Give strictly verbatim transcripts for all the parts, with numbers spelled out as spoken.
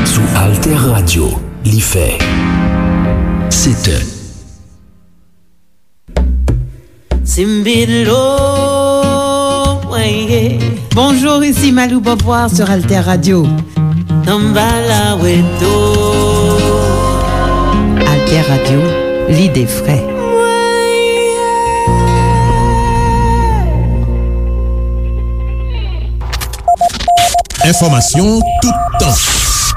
Sou Alter Radio, li fè sèt è. Bonjour, ici Malou Beauvoir sur Alter Radio. Alter Radio, l'idée frais. Enfòmasyon toutan.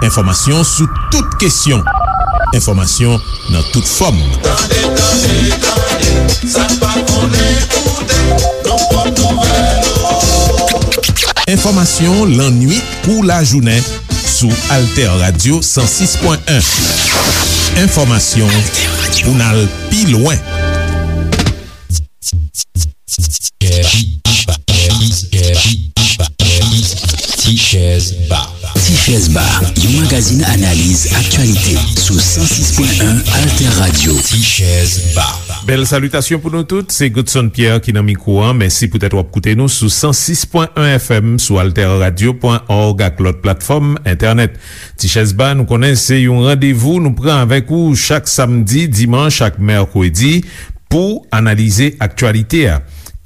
Enfòmasyon sou tout kesyon. Enfòmasyon nan tout fòm. Tande, tande, tande, sa n pa konnen koute, nou pran nouvèl ou. Enfòmasyon lannwit kou lajounen sou Alter Radio san sis pwen en. Enfòmasyon pou n al pi lwen. Tichèz Ba. Tichèz Ba, yon magazin analiz aktyalite sou san sis pwen en Alter Radio. Tichèz Ba. Bèl salitasyon pou nou tout, se Godson Pierre ki nan mikwo a. Mèsi poutèt w ap koute nou sou san sis pwen en F M, sou alter radio pwen org ak lòt platfòm entènèt. Tichèz Ba, nou konnen se yon randevou nou pran avèk ou chak samdi, dimanch ak mèkredi pou analize aktyalite a.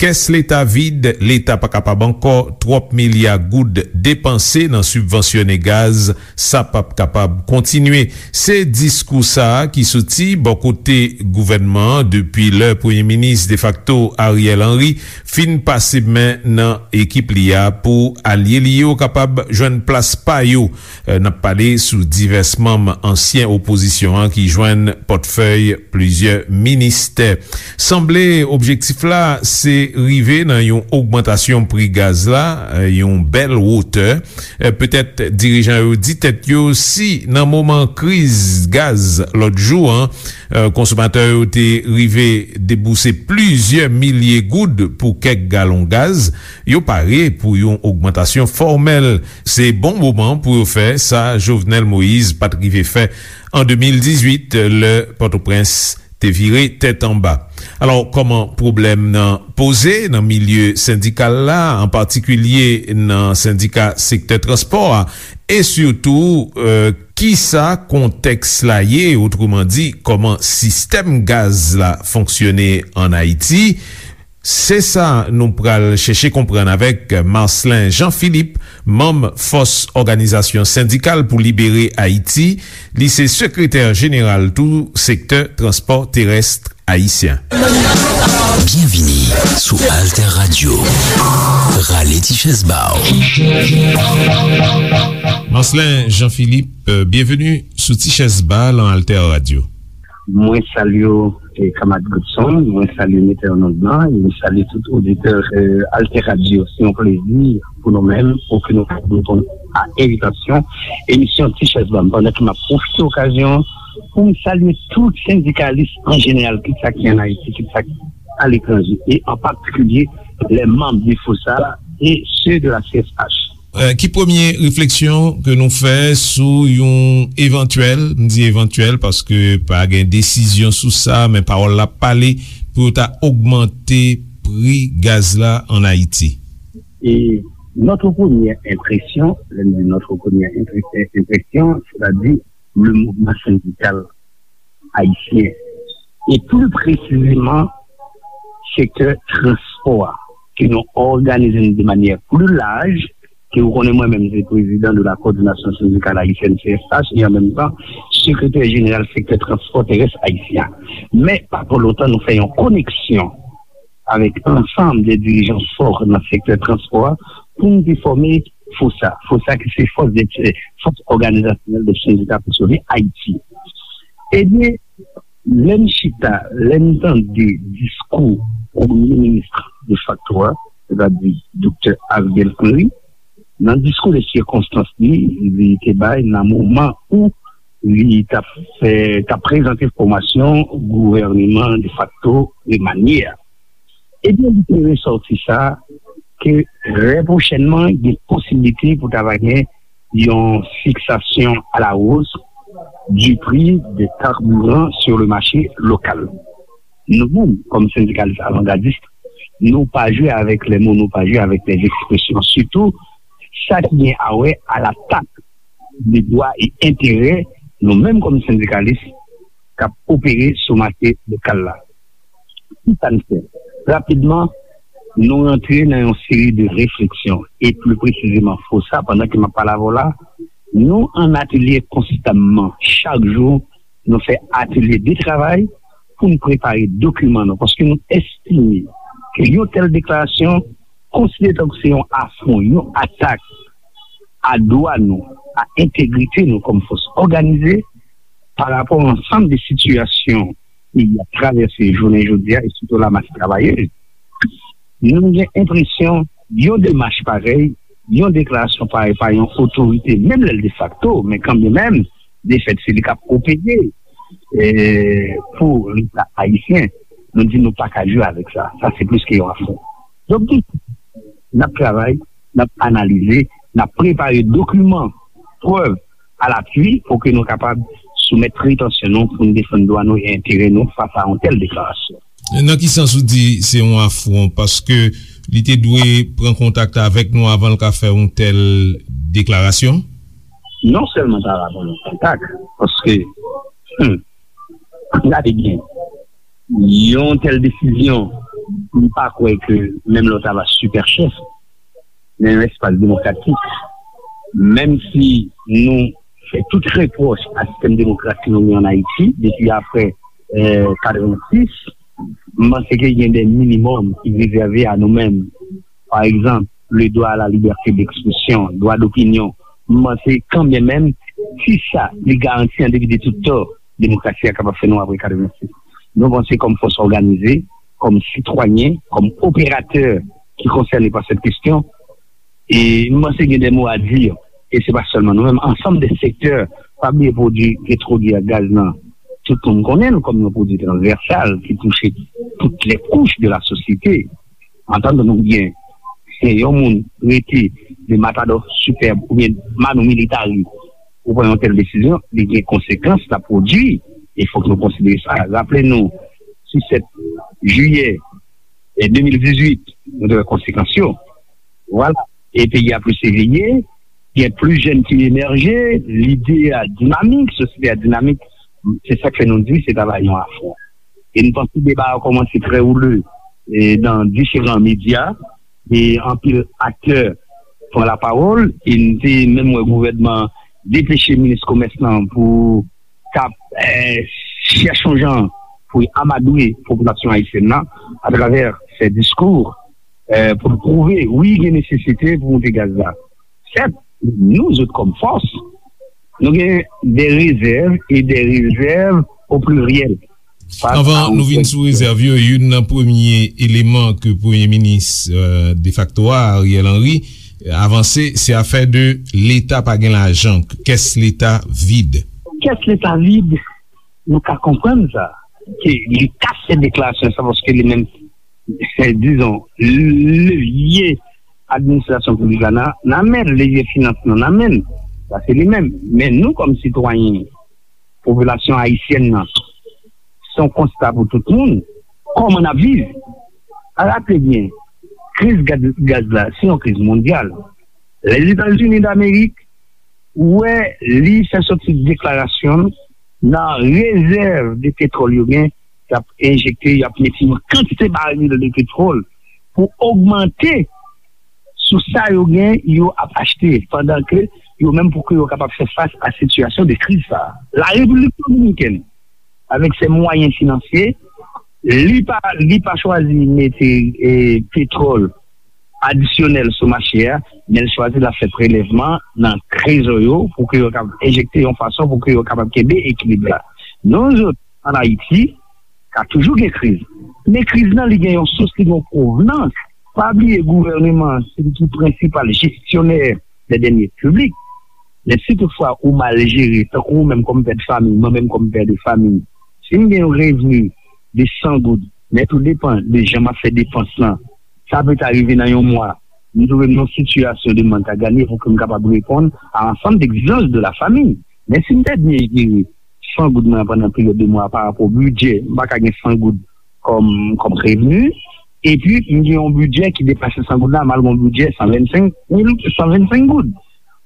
Kès leta vid, leta pa kapab ankò, twòp milya goud depanse nan sibvansyone gaz, sa p ap kapab kontinye. Se diskou sa a ki soti bò kote gouvènman an depi lè Premye Minis defakto Ariel Henry fin pase men nan ekip li a pou alye li yo kapab jwenn plas pa yo. Eh, n ap pale sou divès manm ansyen opozisyon an ki jwenn pòtfèy plizyè ministè. Sanble objektif la se rive nan yon ogmantasyon pri gaz la, eh, yon bèl wotè. Eh, petèt dirijan yo di tèt yo si nan moman kriz gaz lòt jou an, eh, konsomatè yo te rive debouse plizyè milye goud pou kèk galon gaz, yo pare pou yon ogmantasyon fòmèl. Se bon moman pou yo fè sa Jovenel Moïse pa t rive fè an de mil dizuit, lè Pòtoprens te vire tèt anba. Alò, kòman pwoblèm nan poze nan milye sendikal la, an patikilye nan sendika sektè transpò a, e sitou, eh, kisa kontèks la ye, otreman di, kòman sistèm gaz la fonksyone ann Ayiti? Se sa nou pral chèche konprann avèk Marcelin Jean Philippe, manm Fòs Òganizasyon Sendikal pou Libere Ayiti. Li se sekretè jeneral tou sektè transpò terès ayisyen. Byenvini sou Alter Radio. Rale ti chèz ba w. Marcelin Jean Philippe, byenveni sou Ti Chèz Ba lan Alter Radio. Mwen salye w, eh, kanmarad Godson, mwen salye metè an ond lan, e mwen salye tout oditè, eh, Alter Radio. Se yon plezi pou nou menm pou ke nou ka reponn a envitasyon emisyon Ti Chèz Ba m, pandan ke m ap pwofite okazyon an pou m salye tout sendikalis an jeneral, kit sa ki ann Ayiti, kit sa ki aletranje, e an patikilye les membres de fosa e ceux de la C S H. Eh, ki premye refleksyon ke nou fè sou yon evantyèl, m di evantyèl paske pa gen desizyon sou sa, men pawòl la pale pou yo ta ogmante pri gaz la ann Ayiti? Et notre première impression, lè m di notre première impression, c'est-à-dire le mouvement syndical haïtien, et plus précisément sektè transpò a, ke nou òganize nou de manyè pli laj, ke ou konnen mwen menm se prezidan de la coordination syndicale haïtienne, C S H, e an menm tan sekretè jeneral sektè transpò terès ayisyen. Men pa twò lontan nou fè yon koneksyon avèk ansanm de dirijan fò nan sektè transpò a pou n te fòme fosa. Fosa ki se fòs de, fòs òganizasyonèl de sendika pou sove Ayiti. Ebyen, lè n chita, lè n tande diskou premye minis defakto a, Sa di Doktè Ariel Henry, nan diskou de sikonstans li, li te bay nan moman ou li t ap fè, t ap prezante fòmasyon gouvèneman defakto remanye a. Ebyen, li te resòti sa ke trè pwochènman, gen posiblite pou ta va gen yon fiksasyon a la hausse du prix des carburants sur le marché local. Nou menm, kòm sendikalis avangadis, nou pa jwe avèk lè mo, nou pa jwe avèk lè ekspresyon. Sitou, sa ki gen a wè a latak de dwa e enterè nou menm kòm sendikalis k ap opere sou mache lokal la. Ki sa n fè? Rapidman, nou rantre nan yon seri de refleksyon, e pli presizeman, FOSA, pandan ke m ap pale avè w la, nou an atelye konstamman, chak jou, nou fè atelye de travay pou n prepare dokiman nou, paske nou estime ke yon tèl deklarasyon konsidere tankou se yon afwon, yon atak a dwa nou, a entegrite nou kòm fòs òganize, pa rapò a ansanm de sitiyasyon peyi a travèse jounen jodi a, e sitou la mas travayè. Nou gen enpresyon yon demach parèy, yon deklarasyon parèy pa yon otorite, menm lè l defakto, men kanmenm, de fèt, se li k ap opere eh, pou Leta ayisyen, nou di nou pa ka jwe avèk sa. Sa se plis ke yon afwon. Donk, n ap travay, n ap analize, n ap prepare dokiman, prèv alapui pou ke nou kapab soumèt pretansyon nou pou n defann dwa nou e enterè nou fas a yon tèl deklarasyon. Nan ki sans ou di se yon afwon? Paske li te dwe pran kontak avèk nou avan l ka fè yon tèl deklarasyon? Non sèlman ta va pran yon kontak, paske, hmm, gade byen, yon tèl desizyon, m pa kwè ke menm lè w ta va sipè chèf nan yon espas demokratik, menm si nou fè tout repwòch a sistèm demokratik nou gen ann Ayiti depi apre eh, katrevensis, m panse ke gen de minimòm ki rezève a nou menm. Pa egzanp, le droit à la liberté d'expression, dwa dopinyon. M panse kanmenm, si sa li garanti an depi de tout tan, demokrasi a kapab fè nou apre katrevensis. Nou panse kòm fòs òganize, kòm sitwayen, kòm operatè ki konsène pa sèt kesyon, e m panse gen de mo a di, e se pa sèlman nou menm, ansanm de sektè, pa bliye pwodui petwolye ak gaz lan, tout moun konnen l kòm yon pwodui transvèsal ki touche tout lè kouch de la sosyete. Antann nou byen, se yon moun rete de Matadò Sipèb oubyen Mano Militari, ou pran yon tèl desizyon, li gen konsekans l ap pwodui, e fòk nou konsidere sa. Raple nou, sou sèt jiyè eh, de mil dizuit, nou te wè konsekans yo. Vwala. E peyi a plis eveye, gen plis jèn ki emèje, lide a dinamik, sosyete a dinamik. Se sa k fè nou di se ta va yon afwon. E nou panse deba a kòmanse trè woule e nan diferan medya, e anpil aktè pran lapawòl, e n te menm wè gouvènman depeche minis komès lan pou k ap eh, chèche yon jan pou l amadwe popilasyon ayisyèn nan atravè se diskou eh, pou l pwouve, wi, gen nesesite pou moute gaz la. Sèt, nou zòt kòm fòs, nou gen de rezèv e de rezèv o pliryèl. Anvan nou vin sou rezèv yo, youn nan premye eleman ke premye minis eh, defakto a, Ariel Henry, avanse, se afè de Leta pa gen lajan, kès Leta vid. Kès Leta vid, nou ka konprann sa, ke li ka fè deklarasyon sa, paske li menm, se, dizon, levye administrasyon piblik la nan, nan men l, levye finans lan nan men l. Sa se li menm. Men nou, kòm sitwayen, popilasyon ayisyèn nan, se yon konsta pou tout moun. Kòman n ap viv? Raple byen, kriz gaz, gaz la, se yon kriz mondyal. Lèzetazini Damerik, ou wè, li fè soti deklarasyon l nan rezèv de petwòl yo gen, y ap enjekte, y ap mete yon kantite baril de petwòl pou ogmante sou sa yo gen, yo ap achte, pandan ke yo menm pou ke yo kapab fè fas a sitiyasyon de kriz sa a. La Repiblik Dominikèn, avèk se mwayen finansye, li pa, li pa chwazi mete eh, petwòl adisyonèl sou mache a, men l chwazi l ap fè prelèvman nan trezò yo pou ke yo kapab enjekte yon fason pou ke yo kapab kenbe ekilib la. Nou zòt, ann Ayiti, ka toujou gen kriz. Men kriz lan, li gen yon sous, li gen yon pwovnans. Pa bliye gouvèneman an, se li ki prensipal jesyonè dè dènye piblik. Men si toutfwa ou mal jere, tankou ou menm kòm pè de fanmi, mwen menm kòm pè de fanmi, si m gen yon revni de san goud, men tou depan de jan m ap fè depans lan, sa pè ta rive nan yon mwa, m twouve m nan yon sitiyasyon de mank a ganye pou ke m kapab reponn a ansanm de egzijans de la fanmi. Men si m te byen jere san goud mwen pandan peryòd de mwa pa rapò bidjè, m pa ka gen san goud kòm, kòm revni. Epi, m gen yon bidjè ki depase san goud la, m al gen yon bidjè san vennsenk mil, san vennsenk goud.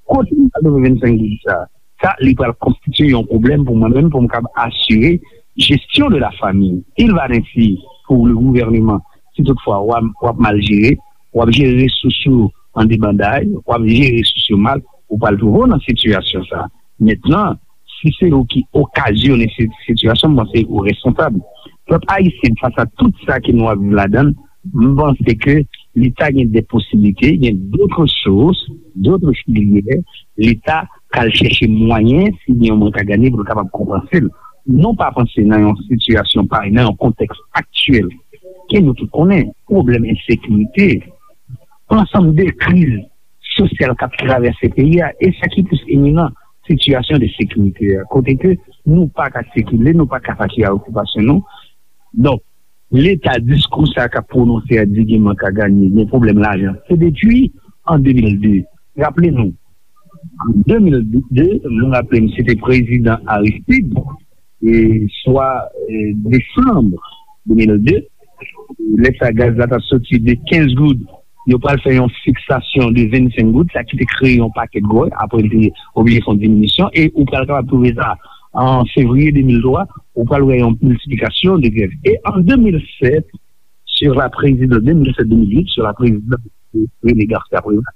Kote m pral twouve vennsenk goud sa? Sa, li pral konstitye yon pwoblèm pou mwen menm, pou m kapab asire jesyon de la fanmi. Il va ainsi pour le gouvernement. Si toutfwa w ap, w ap mal jere, w ap jere resous yo an debanday, w ap jere resous yo mal, ou pral twouve w nan sitiyasyon sa. Mentnan, si se ou ki okazyone si-, sitiyasyon, m panse ou responsab. Pèp ayisyen, fas a tout sa ke nou ap viv ladan l, m panse ke Leta gen de posiblite, gen dòt sous, dòt filyè, Leta ka al chèche mwayen, si gen yon mwayen ka gade pou l kapab konpanse l. Nou pa panse nan yon sitiyasyon parèy, nan yon kontèks aktyèl, ke nou tout konnen, pwoblèm ensekirite, ansanm de kriz sosyal k ap travèse peyi a, e sa ki plis eminan, sitiyasyon de sekirite a, kote ke nou pa ka sikile, nou pa ka pati a okipasyon nou. Donk, Leta, diskou sa k ap pwononse a di gen mank a ganye, gen pwoblèm lajan, se depi an de mil de. Raple nou, an de mil de, mwen raple m, se te prezidan Aristide, e swa, e, desanm de mil de, lè sa gaz la t ap soti de kenz goud, yo pral fè yon fiksasyon de vennsenk goud, sa ki te kreye yon pakèt gwòy, apre li te oblije fè yon diminisyon, e ou pral kapab twouve sa an fevriye de mil twa, ou pral wè yon miltiplikasyon de grèv. E an de mil sèt, sou la prezidans, de mil sèt de mil uit, sou la prezidans de René Garcia Préval,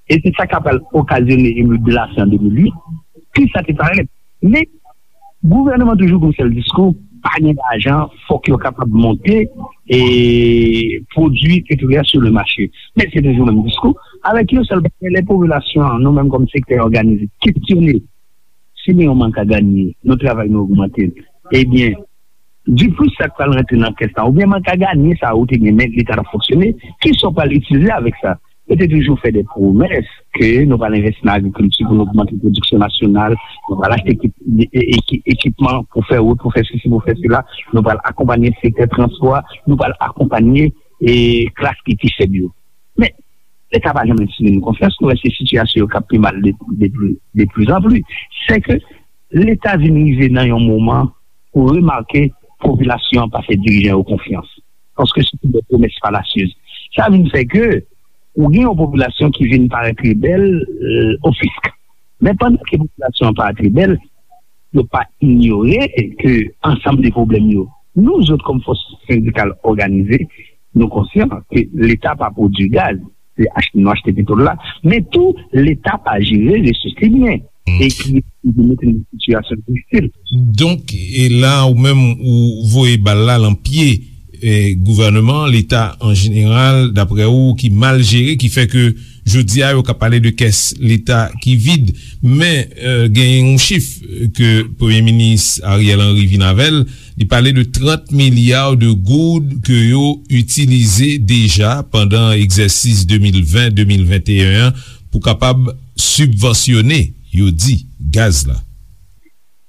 e se sa k ap okazyone emeut de la ri an de mil uit, ke sa te parèt. Men, gouvènman toujou gen yon sèl diskou, pa gen lajan, fòk yo kapab monte e pwodui petrolè sou le mache. Men se toujou menm diskou, avèk yon sèl bagay, lè popilasyon an, nou menm kòm sektè òganize, kesyone si gen yon mank a ganye, nou travay nou ogmante l. Ebyen, diplis sa k pral rantre nan kès la, oubyen mank a ganye sa ou te gen, men Leta t ap fonksyone, kisa w pral itilize avèk sa? Yo te toujou fè de pwomès ke nou pral envesti nan agrikilti pou nou ogmante pwodiksyon nasyonal, nou pral achte ekip-, e-, e-, eki-, ekipman pou fè wout, pou fè sesi, pou fè sela, nou pral akonpanye sektè transpò a, nou pral akonpanye, e, klas ki pi fèb yo. Men, Leta pa janm enspire nou konfyans, nou wè se sitiyasyon yo k ap pi mal de, de pli, de pli an pli. Se ke Leta vin rive nan yon moman ou remake popilasyon an pa fè dirijan yo konfyans. Paske se te de pwomès falasyez. Sa vin fè ke ou gen yon popilasyon ki vin parèt rebèl, e, o fisk. Men pandan ke popilasyon an parèt rebèl, yo pa inyore ke ansanm de pwoblèm yo. Nou zòt kòm fòs sendikal òganize, nou konsyan ke Leta pa pwodui gaz, se achte, nou achte petwòl la, men tou Leta pa jere resous li byen e ki mete nou nan sitiyasyon difisil. Donk, e la ou menm ou voye bal la lan pye, e, gouvènman, Leta an jeneral, daprè ou, ki mal jere, ki fè ke jodi a yo ka pale de kès Leta ki vid. Men, e, gen yon chif ke Premye Minis Ariel Henry vin avè l, li pale de trant milya de goud ke yo itilize deja pandan egzèsis de mil ven, de mil venteyen an pou kapab sibvansyone, yo di, gaz la.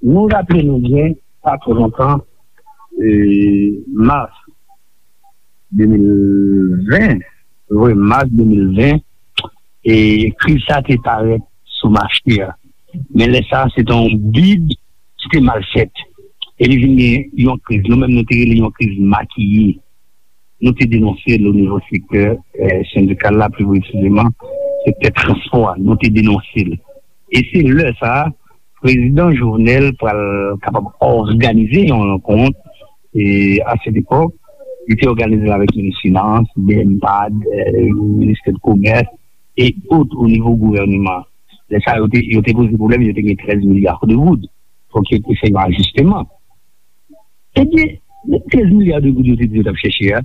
Nou raple nou byen, pa twò lontan, e, mas de mil ven, wi, mas de mil ven, e, kriz sa te parèt sou mache a. Men lè sa a, se te yon bid ki te mal fèt. E li vin gen yon kriz. Nou menm, nou te rele yon kriz makiye. Nou te denonse l o nivo sektè, e, sendikal la, pli presizeman, sektè transpò a. Nou te denonse l. E se lè sa a, Prezidan Jovenel pral kapab òganize yon rankont, e, a sèt epòk, li te òganize l avèk minis finans, BMPAD, e, ministè de komès, e dòt o nivo gouvènman. Lè sa a, yo te, yo te poze pwoblèm, yo te gen trèz milya de goud. Fòk yo te fè yon ajisteman. Ebyen, trèz milya de goud yo te di yo t ap chèche a,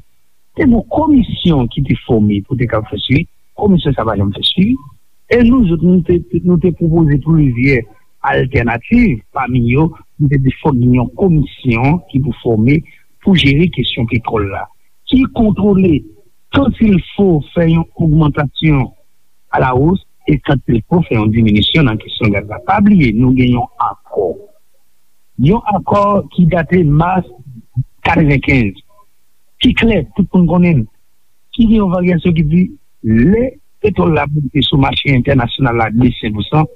te gen yon komisyon ki te fòme pou te ka fè swivi, komisyon sa pa janm fè swivi, e nou zòt, nou te, nou te pwopoze plizyè altènativ, pami yo, nou te di fòk gen yon komisyon ki pou fòme pou jere kesyon petwòl la, ki kontwole quand il faut fè yon ogmantasyon a la hausse e quand il faut fè yon diminisyon nan kesyon gaz la. Pa bliye, nou gen yon akò. Yon akò ki date mas katrevenkenz, ki klè, tout moun konnen l, ki gen yon varyasyon ki di, lè petwòl la monte sou mache entènasyonal la de senk pousan,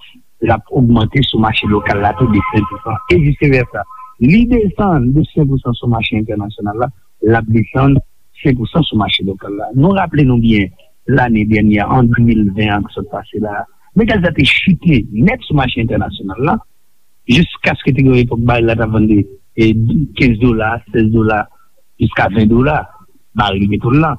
l ap ogmante sou mache lokal la tou de senk pousan, e vice versa. Li desann de senk pousan sou mache entènasyonal la, l ap desann senk pousan sou mache lokal la. Nou raple nou byen, lane dènyè, an de mil ven an ki sot pase la, men gaz la te chite nèt sou mache entènasyonal la, jiskaske te gen yon epòk baril la t ap vann de, e, kenz dola, sèz dola, jiska ven dola, baril petwòl la.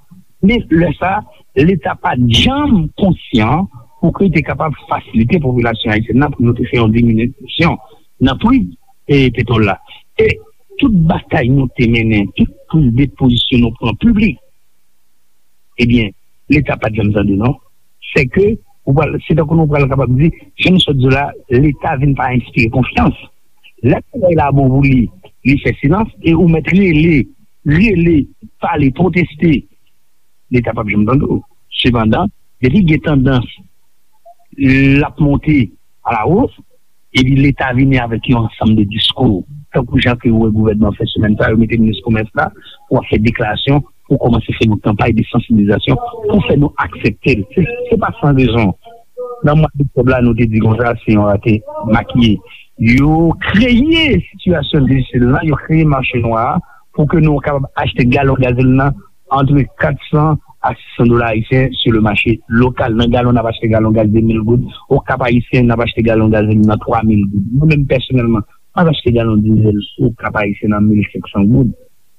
Men lè sa, Leta pa t janm konsyan pou ke te kapab fasilite popilasyon ayisyèn nan pou nou te fè yon diminisyon nan pri, e, petwòl la. E tout batay nou te mennen, tout priz de pozisyon nou pran piblik, ebyen, Leta pa t janm tande, non. Se ke, ou pral, se tankou nou pral kapab di, jan nou sot di la, Leta vin pa enspire konfyans. Lè bagay la bon pou li, li fè silans, e ou mèt rele, rele, pale, pwoteste, Leta p ap janm tande w. Sepandan, depi gen tandans, l ap monte a la hausse, epi Leta vini avèk yon ansanm de diskou, tankou jan ke ou wè gouvènman fè semèn sa, yo mete minis komès la pou ap fè deklarasyon, pou kòmanse fè yon kanpay de sansibilizasyon, pou fè nou aksepte l. Se, se pa san rezon. Nan mwa oktòb la, nou te di konsa, se yon rate makiye. Yo kreye sitiyasyon difisil la, yo kreye mache nwa a, pou ke nou kapab achte galon gazolin nan antre kat san a sis san dola ayisyen sou le mache lokal. Nan galon, n ap achte galon gaz de mil goud, Okap ayisyen, n ap achte galon gazolin nan twa mil goud. Mwen menm pèsonèlman, m ap achte galon dizèl Okap ayisyen nan mil senk san goud,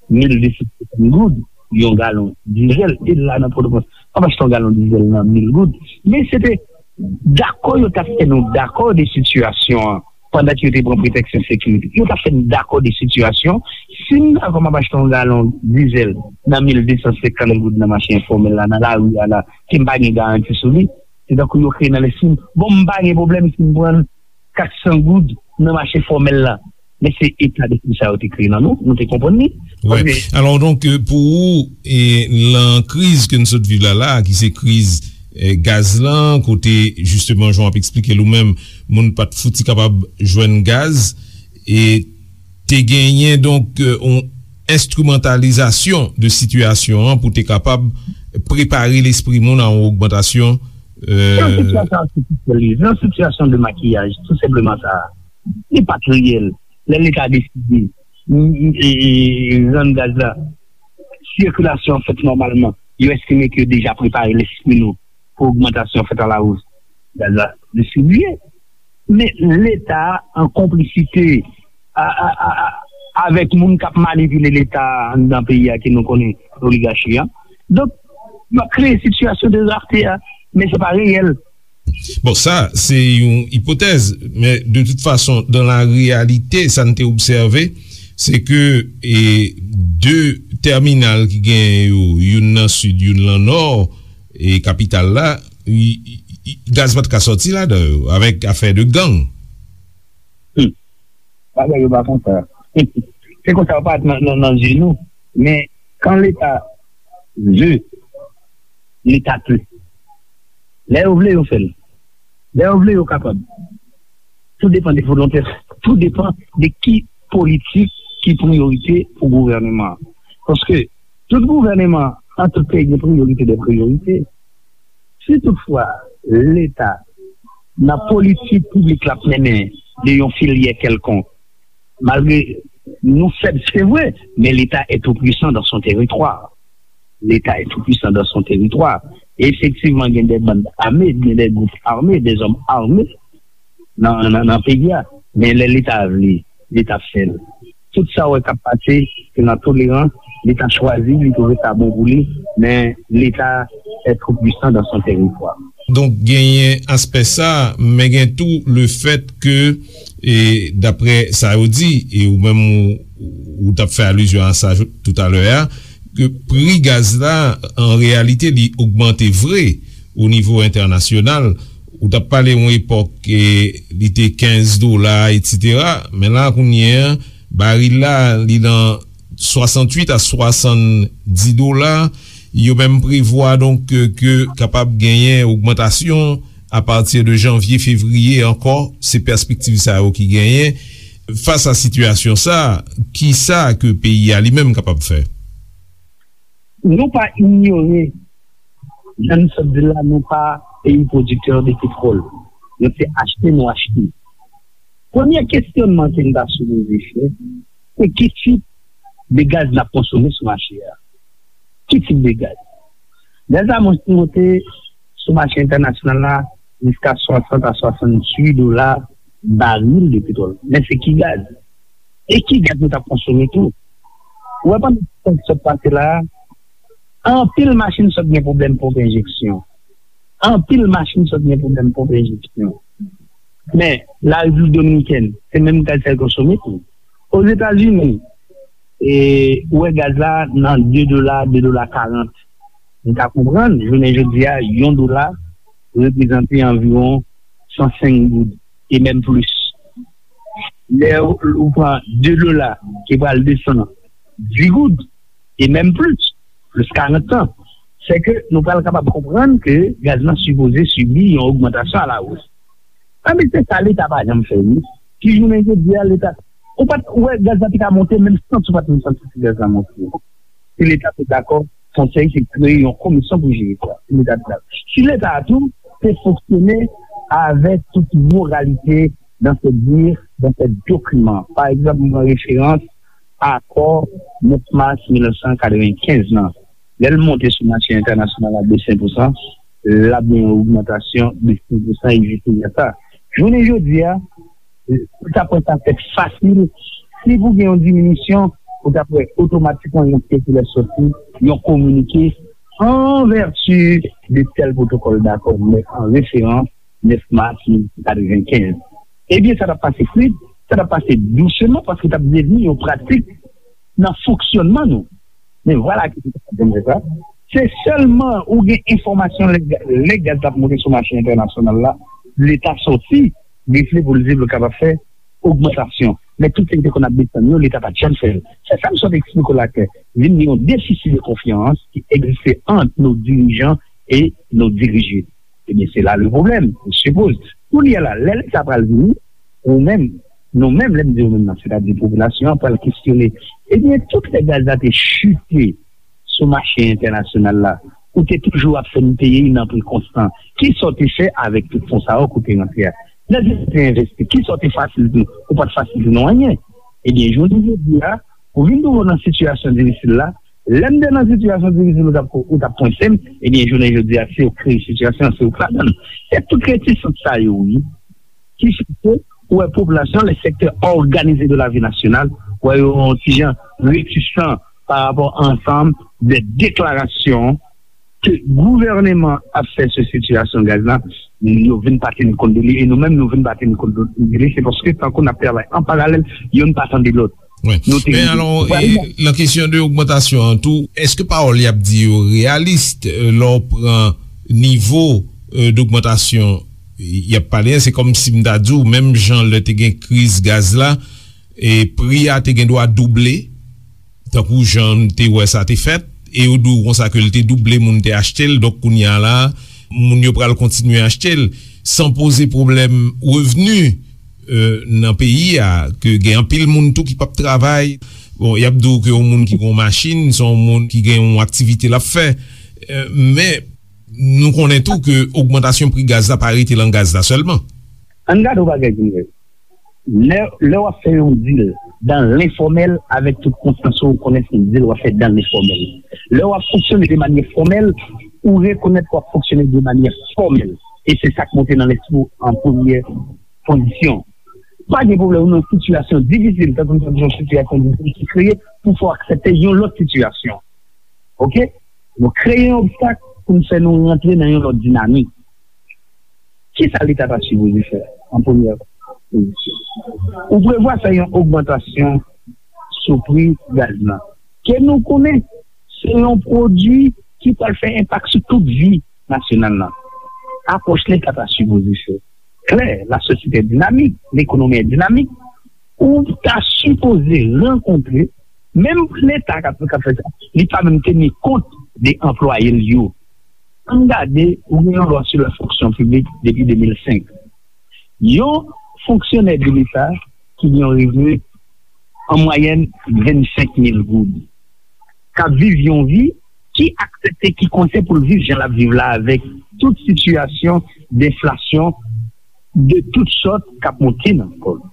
mil de san senkant goud, yon galon dizèl, e la nan Pòtoprens, m ap achte yon galon dizèl nan mil goud. Men se te dakò yo t ap fè nou dakò de sitiyasyon an, pandan ke yo te pran pretèks ensekirite. Yo t ap fè n dakò de sitiyasyon. Si m dakò m ap achte yon galon dizèl nan mil de san senkant goud nan mache enfòmèl la, nan lari a la, ke m pa gen garanti sou li, se tankou yo kreye nan lespri m, bon, m pa gen pwoblèm si m pran kat san goud nan mache fòmèl la. Men se eta despri sa yo te kreye nan nou, nou te konprann li. Wi. Paske alò, donk, euh, pou ou, e, lan kriz ke n sot viv la la, ki se kriz, e, gaz lan, kote, jisteman, jan w ap eksplike l ou menm, moun pa t fouti kapab jwenn gaz, e te genyen, donk, e, yon enstrimantalizasyon de sitiyasyon an pou te kapab prepare lespri moun a yon ogmantasyon, e, nan sitiyasyon atipisyèl li, nan sitiyasyon de makiyaj, tou senpleman sa. Li pa t reyèl. Lè Leta deside, e, e, rann gaz la, sikilasyon an fèt nòmalman, yo estime ke yo deja prepare lespri nou pou ogmantasyon fèt a la hausse. Gaz la distribiye. Men Leta, an konplisite a, a, a, a, avèk moun k ap manipile Leta anndan peyi a, ke nou konnen, oligachi a. Donk, yo ap kreye sitiyasyon de rarte a, men se pa reyèl. Bon, sa, se yon ipotèz, men de tout fason, dans la réalité, sa n te obsève, se ke, e, de tèminal ki genyen yo, youn nan sid, youn nan nò, e kapital la, i, i, i, gaz pa t ka sòti ladan yo, avèk afè de gang. Hmm. Bagay yo pa konsa. Se konsa yo parèt nan, nan, nan je nou. Men, kan Leta ve, Leta pe. Lè yo vle, yo fè l. Lè yo vle, yo kapab. Tou depann de volontè, tou depann de ki politik ki priyorite pou gouvèneman an. Paske tout gouvèneman an, tout peyi gen priyorite dè priyorite. Si toutfwa Leta, nan politik piblik l ap mennen de yon filyè kèlkonk, malgre nou fèb, se vre, men Leta est tout puissant dans son territoire. Leta est tout puissant dans son territoire. Efektivman, gen de bann ame, gen de gwoup ame, de zòm ame nan, nan, nan peyi a. Men lè Leta vle, Leta fè l. Tout sa w wè k ap pase, se nan tolerans, Leta chwazi, li twouve sa bon pou li, men Leta est tout puissant dans son territoire. Donk, genyen aspè sa, men gen tou le fèt ke, e, daprè sa yo di, e ou menm ou, ou t ap fè alizyon a sa jou-, toutalè a, ke pri gaz la, an reyalite, li ogmante vre o nivo entènasyonal. Ou t ap pale yon epòk, e, li te kenz dola, etsetera. Men la, kounye a, baril la, li nan swasanntuit a swasanndis dola. Yo menm prevwa donk ke, ke kapab genyen ogmantasyon apati de janvye, fevriye ankò. Se pèspektiv sa yo ki genyen. Fas a sitiyasyon sa, kisa ke peyi a li menm kapab fè? Nou pa inyore, jan nou sot di la, nou pa peyi pwodiktè de petwòl. Nou se achte, nou achte. Premye kesyonman ke n ta sipoze fè, se ki tip de gaz n ap konsome sou mache a? Ki tip de gaz? Gaz la monte sou mache entènasyonal la jiska swasant a swasanntuit dola baril de petwòl. Men se ki gaz? E ki gaz nou t ap konsome tou? Ou wè, pandan tan k sot pase la a, anpil machin sot gen pwoblèm ponp enjeksyon. Anpil machin sot gen pwoblèm ponp enjeksyon. Men, Larepiblik Dominikèn, se menm gaz sa yo konsome tou. Ozetazini, e, ou wè gaz la nan de dola, de dola karant. Nou ka konprann, jounen jodi a, yon dola reprezante anviwon san senk goud, e menm plis. Lè ou, ou pran de dola ki pral desann dis goud, e menm plis, plis karant tan, se ke nou pral kapab konprann ke gaz lan sipoze sibi yon ogmantasyon a la wos. Anben, se sa Leta pa janm fè, wi. Ki jounen jodi a, Leta, ou pa t wè gaz la te ka monte, menm sant ou pa t menm santi si gaz la monte. Si Leta te dakò, fon sèvis te kreye yon komisyon pou jere sa. Si Leta te dakò. Si Leta a tou te fonksyone avèk tout moralite dans ses dires, dans ses documents. Pa egzanp, m pran referans akò nèf mas mil nèf san katrevenkenz lan. Lè l monte sou mache entènasyonal la de senk pousan, l ap gen yon ogmantasyon de senk pousan e vise versa. Jounen jodi a, ou ta pran sa tèt fasil, si pou gen yon diminisyon, ou ta pran otomatikman yon sikilè sòti, yon kominike an vèti de tèl pwotokòl dakò, men an referans nèf mas mil nèf san katrevenkenz. Ebyen, sa t ap pase fluid, sa t ap pase douseman, paske t ap devni yon pratik nan fonksyònman nou. Men vwala ki se pa janm fè sa. Se sèlman ou gen enfòmasyon lè, lè gaz la ap monte sou mache entènasyonal la, Leta sòti, rifle pou l di l kapab fè ogmantasyon. Men tout sa ki te konn ap desann yo, Leta pa t janm fè l. Se sa m sot eksplike w la klè. Vin gen yon defisi de konfyans ki egziste ant nos dirigeants et nos dirigés. Ebyen, se la le pwoblèm, je suppose. Kounye a la, lè Leta pral vini, ou menm, nou menm, lè m di ou menm nan, sètadi popilasyon an pral kesyone, ebyen, tout lè gaz la te chite sou mache entènasyonal la, ou te toujou ap fè n peye nan pri konstan. Kisa w te fè avèk tout fon sa yo k ou te rantre a? Lè w te envesti, kisa w te fasilite nou? Ou pa t fasilite nou anyen. Ebyen, jounen jodi a, ou vin twouve w nan sitiyasyon difisil la. Lè m te nan sitiyasyon difisil, ou t ap, ou t ap pwense m, ebyen, jounen jodi a, se ou k kreye sitiyasyon an, se ou k ladan l. Se tout retisans sa yo, wi, ki fè ke ou wè popilasyon, le secteur organisé de la vie nationale, wè yo yon ti jan retisan pa rapò a ansanm de deklarasyon ke gouvèneman ap fè sou sitiyasyon gaz la, yo vin pa teni kont de li, e nou menm nou vin pa teni kont de li, se paske tankou n ap travay an paralèl, youn pa tande lòt. Wi. Men alò, e, nan kesyon de ogmantasyon an tou, èske pawòl y ap di yo reyalis, e, lè w pran nivo, e, dogmantasyon y ap pale a? Se kòmsi m ta di w, menm jan lè te gen kriz gaz la, e pri a te gen dwa double, tankou jan n te wè sa te fèt, e yo di w konsa ke l te double, moun te achte l, donk kounye a la, moun yo pral kontinye achte l, san poze pwoblèm revni, e, nan peyi a, ke gen anpil moun tou ki p ap travay. Bon, y ap di w ke yon moun ki gen yon machin, se yon moun ki gen yon aktivite l ap fè. E, men, nou konnen tou ke ogmantasyon pri gaz la pa rete lan gaz la sèlman. Ann gade yon bagay ki vrè. Lè, lè w ap fè yon deal dans l'informel, avèk tout konsyans ou, ou konnen se yon deal w ap fè dans l'informel. Lè w ap fonksyone de manyè fòmèl, ou rekonèt w ap fonksyone de manyè fòmèl. E se sa k monte nan lespri w an premyè kondisyon. Pa gen pwoblèm, ou nan sitiyasyon difisil, tankou m te di w, yon sitiyasyon difisil ki kreye pou fè w aksepte yon lòt sitiyasyon. Oke? Nou kreye yon obstak pou n fè nou rantre nan yon lòt dinamik. Kisa Leta ta sipoze fè an premyè pozisyon? Ou prevwa fè yon ogmantasyon sou pri gaz lan, ke nou konnen se yon pwodui ki pral fè enpak sou tout vi nasyonal lan. Apwòch Leta ta sipoze fè klè, la société est dynamique, l'économie est dynamique, ou ta sipoze rankontre, menm Leta k ap, k ap fè sa, li pa menm teni kont de anplwaye l yo. Ann gade, ou gen yon lwa sou la fonksyon piblik depi de mil senk. Yon fonksyonè de Leta ki gen yon revni an mwayèn vennsenk mil goud, k ap viv yon vi ki aksepte, ki konsyan pou l viv jan l ap viv la avèk tout sitiyasyon denflasyon de tout sòt k ap monte nan kò l.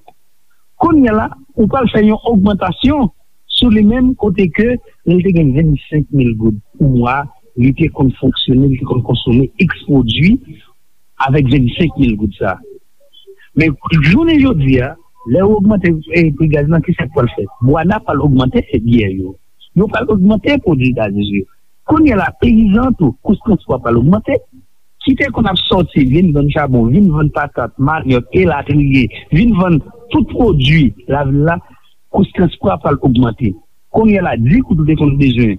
Kounye a la, ou pral fè yon ogmantasyon sou li menm kote ke li te gen vennsenk mil goud pou mwa, li te konn fonksyone, li te konn konsome X pwodui avèk vennsenk mil goud sa. Men jounen jodi a, lè yo ogmante eh, pri gaz lan, ki sa k pral fèt? Bwana pral ogmante biyè yo. Yo pral ogmante pwodui gaz yo. Kounye a la, peyizan tou, kous transpò pral ogmante. Ki te konn ap sòti, vin vann chabon, vin vann patat, manyòk, elatriye, vin vann tout pwodui lavil la, kous transpò a pral ogmante. Kounye a la, di goud ou te konn bezwen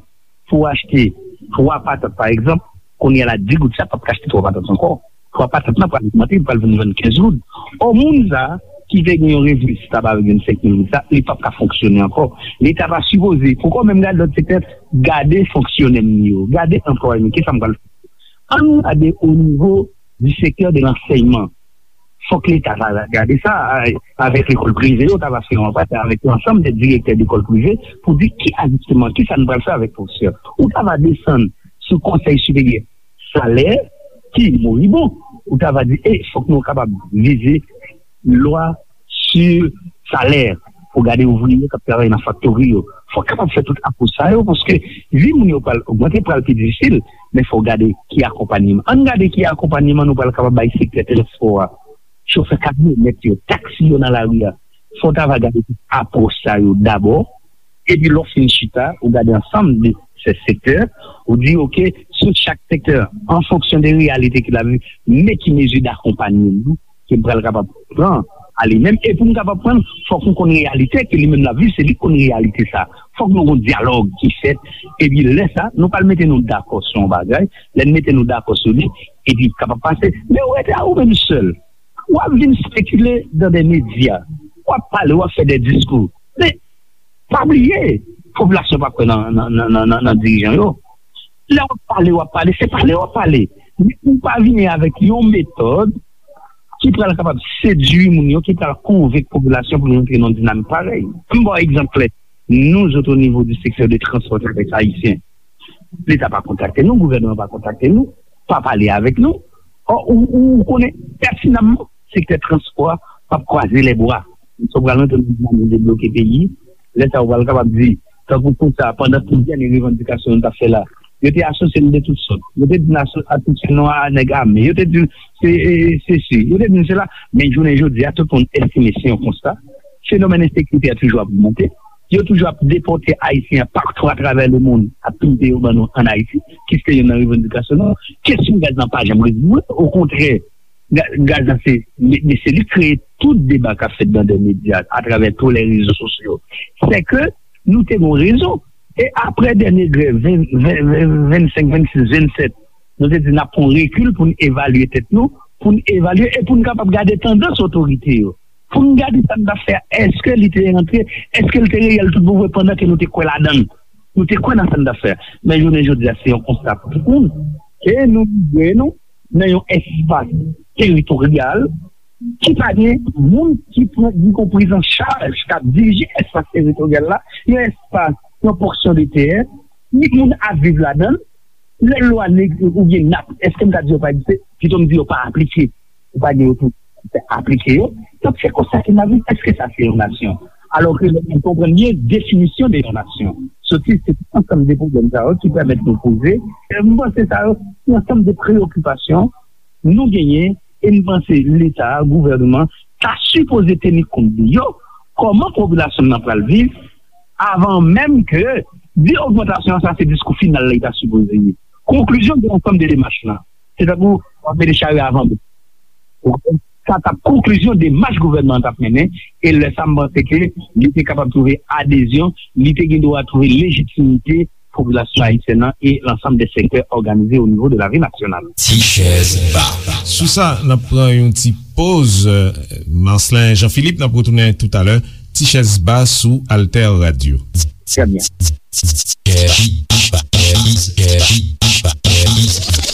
pou w achte twa patat, pa egzanp, kounye a la, di goud sa p ap ka achte twa patat ankò. Twa patat lan pral ogmante, li pral vin vann kenz goud. Ò, moun sa ki te gen yon revni stab avèk vennsenk mil goud sa, li p ap ka fonksyone ankò. Leta ta sipoze, poko menm gade lòt sektè, gade fonksyonè m yo, gade anplwaye m yo, ki sa m pral fè? Ann gade o nivo di sektè de lansèyman. Fòk Leta ta gade sa, a- avèk lekòl prive yo, ta va fè yon anpat avèk yon ansanm de direktè lekòl prive pou di ki ajisteman, ki sa nou pral fè avèk pwofesè. Ou ta va desann sou Konsèy Siperyè Salè ki moribon. Ou ta va di, e, fòk nou kapab vize lwa sou salè, pou gade ouvriye k ap travay nan faktori yo. Fòk kapab fè tout apwòch sa yo, paske vi moun yo pral ogmante, pral pi difisil, men fòk gade ki akonpayman. Ann gade ki akonpayman nou pral kapab bay sektè transpò a, chofè kamyonèt yo, taksi yo nan lari a. Fò ta va gade tout apwòch sa yo dabò, epi lè w fin chita, ou gade ansanm de se sektè, ou di, oke, sou chak sektè, an fonksyon de reyalite ki la vi, men ki mezi dakonpayman nou ke m pral kapab pran a li menm. E pou m kapab pran l, fòk m konn reyalite ke li menm l ap viv, se li k konn reyalite sa. Fòk nou gon dyalòg ki fèt, epi lè sa, nou pral mete nou dakò sou yon bagay, lè n mete nou dakò sou li, epi kapab pase. Men ou rete a ou menm sèl. W ap vin spekile dan de medya. W ap pale, w ap fè de diskou. Men, pa bliye, popilasyon pa kwè nan, nan, nan, nan, nan, nan dirijan yo. Lè w ap pale, w ap pale, se pale w ap pale. Men ou pa vini avèk yon metòd ki pral kapab sedui moun yo, ki pral konvenk popilasyon pou yo antre nan yon dinamik parèy. M ba w egzanp klè. Nou zòt o nivo di sektè de transpò tèritwa ayisyen, Leta pa kontakte nou, gouvènman pa kontakte nou, pa pale avèk nou. Ò, ou, ou, ou konnen pètinamman sektè transpò a p ap kwaze lè bra. Sa w pral antre nan dinamik debloke peyi. Lè sa a, ou pral kapab di, tankou konsa, pandan tout dènye revandikasyon nou t ap fè la, yo te asosye nou de tout sòt. Yo te di n aso- asosye nou a nèg ame. Yo te di n se e, e, sesi. Yo te di n sela. Men jounen jodi a, tout moun estime se yon konsta. Fenomèn ensekirite a toujou ap monte. Yo toujou ap depòte Ayisyen an patou atravè lemonn, ap pimpe yo ban nou ann Ayiti, ki se youn nan revandikasyon nou. Kesyon gaz lan pa janm rezoud. Okontrè, ga- gaz lan se, men men se li k kreye tout deba k ap fèt nan de medya atravè tou lè rezo sosyo. Se ke nou te gon rezon. E apre dènye grèv ven, ven, ven, vennsenk, vennsis, vennsèt, nou te di n ap pran rekil pou n evalye tèt nou, pou n evalye e pou n kapab gade tandans otorite yo. Pou n gade sa n t ap fè a, èske li te rantre, èske l te reyèl tout bon vre pandan ke nou te kwè ladan l. Nou te kwè nan sa n t ap fè a. Men jounen jodi a, se yon konsta pou tout moun. E nou rive nou nan yon espas teritoryal ki pa gen moun ki pran, ki gon priz an chaj, k ap dirije espas teritoryal la, yon espas, yon pòsyon de tè, ni moun ap viv ladan l. Lè lwa neg- oubyen nap, èske m ta di yo pa egziste? Pito m di yo pa aplike. Ou pa gen yo pou aplike yo. Donk, se konsa ke n ap viv. Èske sa se yon nasyon? Alò ke lè nou konprann byen definisyon de yon nasyon, soti se tout ansanm de pwoblèm sa yo ki pèmèt nou poze. E m panse sa yo, se yon ansanm de preyokipasyon nou genyen, e m panse Leta, gouvènman, ta sipoze teni kont de yo. Kòman popilasyon nan pral viv avan menm ke di ogmantasyon an, sa se diskou final la li ta sipoze ye. Konklizyon de ansanm de demach lan, se tankou w ap mete chari avan bèf. Ou konprann? Sa t ap konklizyon demach gouvènman an t ap mennen, e lè sa m panse ke li te kapab twouve adezyon, li te gen dwa twouve lejitimite popilasyon ayisyèn nan e lansanm de sektè òganize o nivo de lavi nasyonal. Ti chèz ba. Sou sa, n ap pran yon ti poz. Marcelin Jean Philippe, n ap retounen toutalè. Ti chèz ba sou Alter Radio. Trè byen.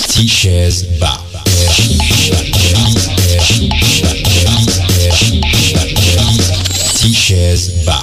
Ti chèz ba. Ti chèz ba.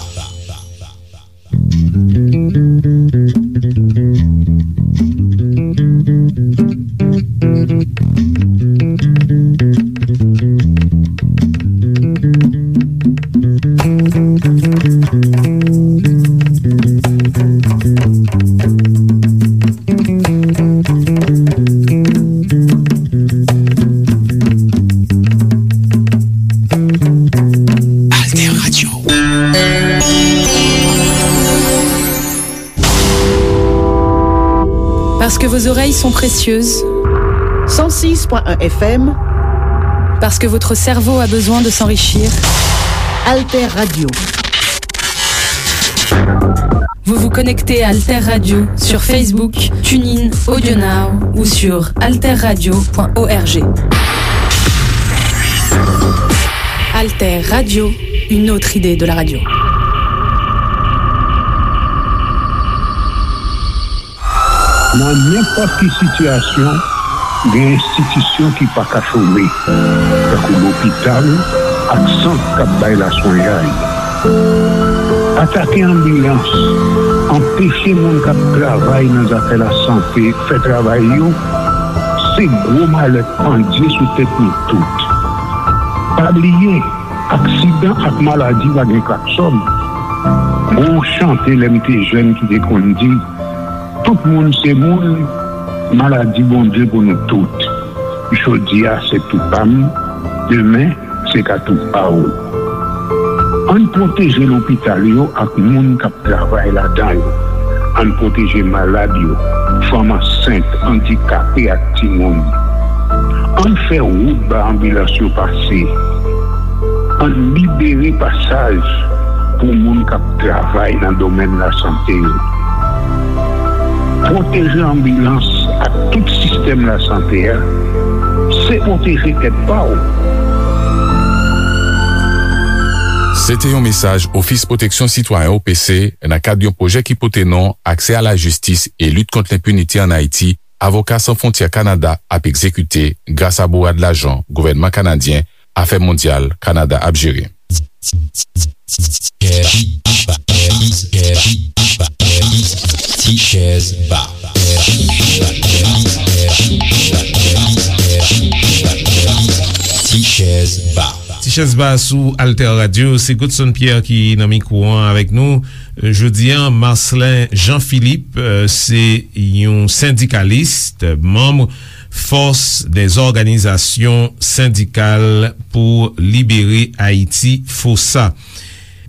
Alter Radio. Parce que vos oreilles sont précieuses. Cent six point un F M. Parce que votre cerveau a besoin de s'enrichir. Alter Radio. Vous vous connectez à Alter Radio sur Facebook, TuneIn, AudioNow ou sur alter radio point org. Alter Radio, une autre idée de la radio. Nan nenpòt ki sitiyasyon, gen enstitisyon ki pa ka chome, tankou lopital ak sant k ap bay laswenyay. Atake anbilans, anpeche moun k ap travay nan zafè lasante fè travay yo, se gwo malè k pandye sou tèt nou tout. Pa bliye, aksidan ak maladi pa gen klaksòn. Gon chante lè m te jèn ki te konn di, tout moun se moun, maladi Bondye pou nou tout. Jodi a se tou pa m, demen se ka tou pa w. Ann pwoteje lopital yo ak moun k ap travay ladan yo. Ann pwoteje malad yo, fanm ansent, andikape ak timoun. Ann fè wout ba anbilans yo pase. Ann libere pasaj pou moun k ap travay nan domèn lasante yo. Pwoteje anbilans ak tout sistèm lasante a, se pwoteje tèt pa w. Se te yon mesaj Ofis Pwoteksyon Sitwayen, O P C, nan kad yon pwojè ki pote non Aksè a la jistis e lit kont lenpinite ann Ayiti, Avoka San Fwontyè Kanada ap egzekite gras a bourad lajan gouvènman kanadyen Afè Mondyal Kanada ap jere. Ti chèz ba. Ti chèz ba. Ti chèz ba sou Alter Radio, se Godson Pierre ki nan mikwo an avèk nou. Jodi a, Marcelin Jean Philippe, euh, se yon sendikalis, manm Force des Organisations Syndicales pour Libérer Haïti, fosa.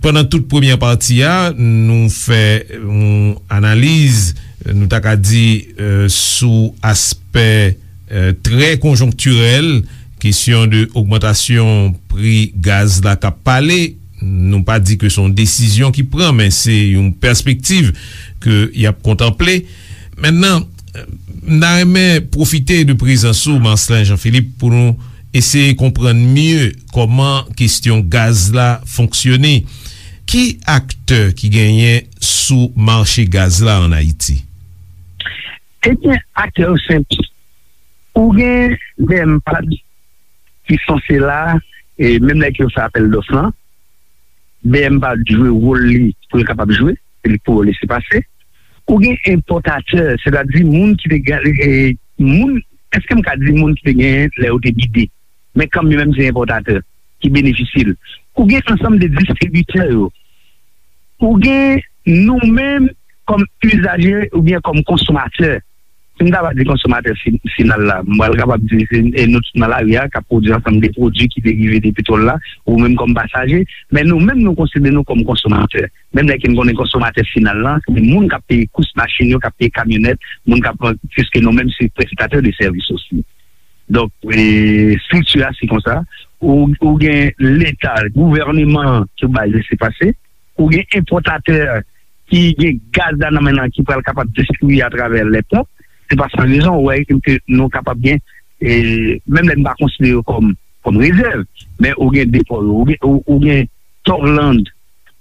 Pandan tout premyè pati a, nou fè yon analiz, nou ta ka di, euh, sou aspè, euh, trè konjonktirèl, kesyon de ogmantasyon pri gaz la k ap pale. Nou pa di ke se yon desizyon ki pran, men se yon pèspektiv ke y ap kontanple. Mentnan, m ta renmen pwofite de prezans ou, Marcelin Jean Philippe, pou nou eseye konprann mye kòman kesyon gaz la fonksyone. Ki aktè ki genyen sou mache gaz la ann Ayiti? Ebyen, aktè yo senp. Ou gen B M P A D ki sanse la, e menm lè ke yo fè apèl dòf lan, B M P A D jwe wòl li pou l kapab jwe, e li pou lese pase. Ou gen enpòtatè, sètadi moun ki te gen, e, moun, èske m ka di moun ki te genyen lè yo te bide? Men kanmenm se enpòtatè ki benefisye l. Ou gen ansanm de distribitè yo. Ou gen nou menm kòm izaje oubyen kòm konsomatè. Si m ta va di konsomatè fi-, final la, m pral kapab di se, e, nou tout nan lari a k ap pwodui ansanm de pwodui ki derive de petwòl la, ou menm kòm pasaje, men nou menm nou konsidere nou kòm konsomatè. Menm lè ke n konnen konsomatè final la, se moun k ap peye kous machin yo, k ap peye kamyonèt, moun k ap, piske nou menm se prestatè de sèvis osi. Donk, e, estrikti a se konsa. Ou, ou gen Leta, gouvèneman an ki bay lese pase. Ou gen enpòtatè ki gen gaz la nan men l lan ki pral kapab distribiye atravè lè ponp. Se pa san rezon, ou wè, ke nou kapab gen, e, menm lè n pa konsidere yo kòm, kòm rezèv, men ou gen depo yo, ou gen, ou, ou gen Torland,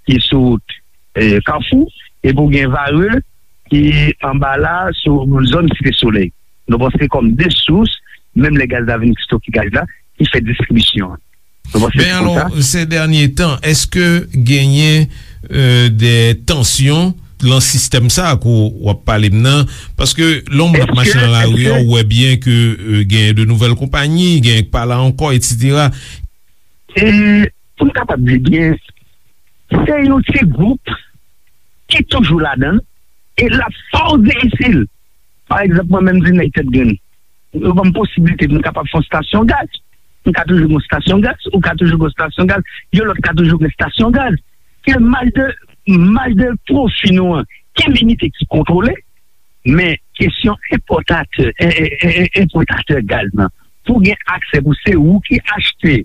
ki sou wout eh, Kafou, epi w gen Varreux ki anba la sou zòn Site Solèy. Nou panse kòm de sous, menm lè gaz la vin stoke gaz la, ki fè distribisyon an. Nou panse Men se konsa. Alò, se dènye tan, èske genyen eh, de tansyon lan sistèm sa a ke w ap pale m nan? Paske lè yon moun ap mache nan lari a, ou wè byen ke eh, genyen de nouvèl konpayi, genyen k pa la ankò, etsetera. E pou m kapab di byen, se yon ti gwoup ki toujou ladan l e l ap fòse isil. Pa egzanp, mwen menm, di nèg Tèt Grenn, yo ban m posiblite pou m kapab fè yon estasyon gaz. M ka toujou gen yon estasyon gaz, ou ka toujou gen yon estasyon gaz, yon lòt ka toujou gen estasyon gaz. Se maj de, maj de pwofi nou an ki limite, ki kontwole. Men kesyon enpòtatè, e, e, e, e, enpòtatè gaz lan, pou gen aksè, pou se ou ki achte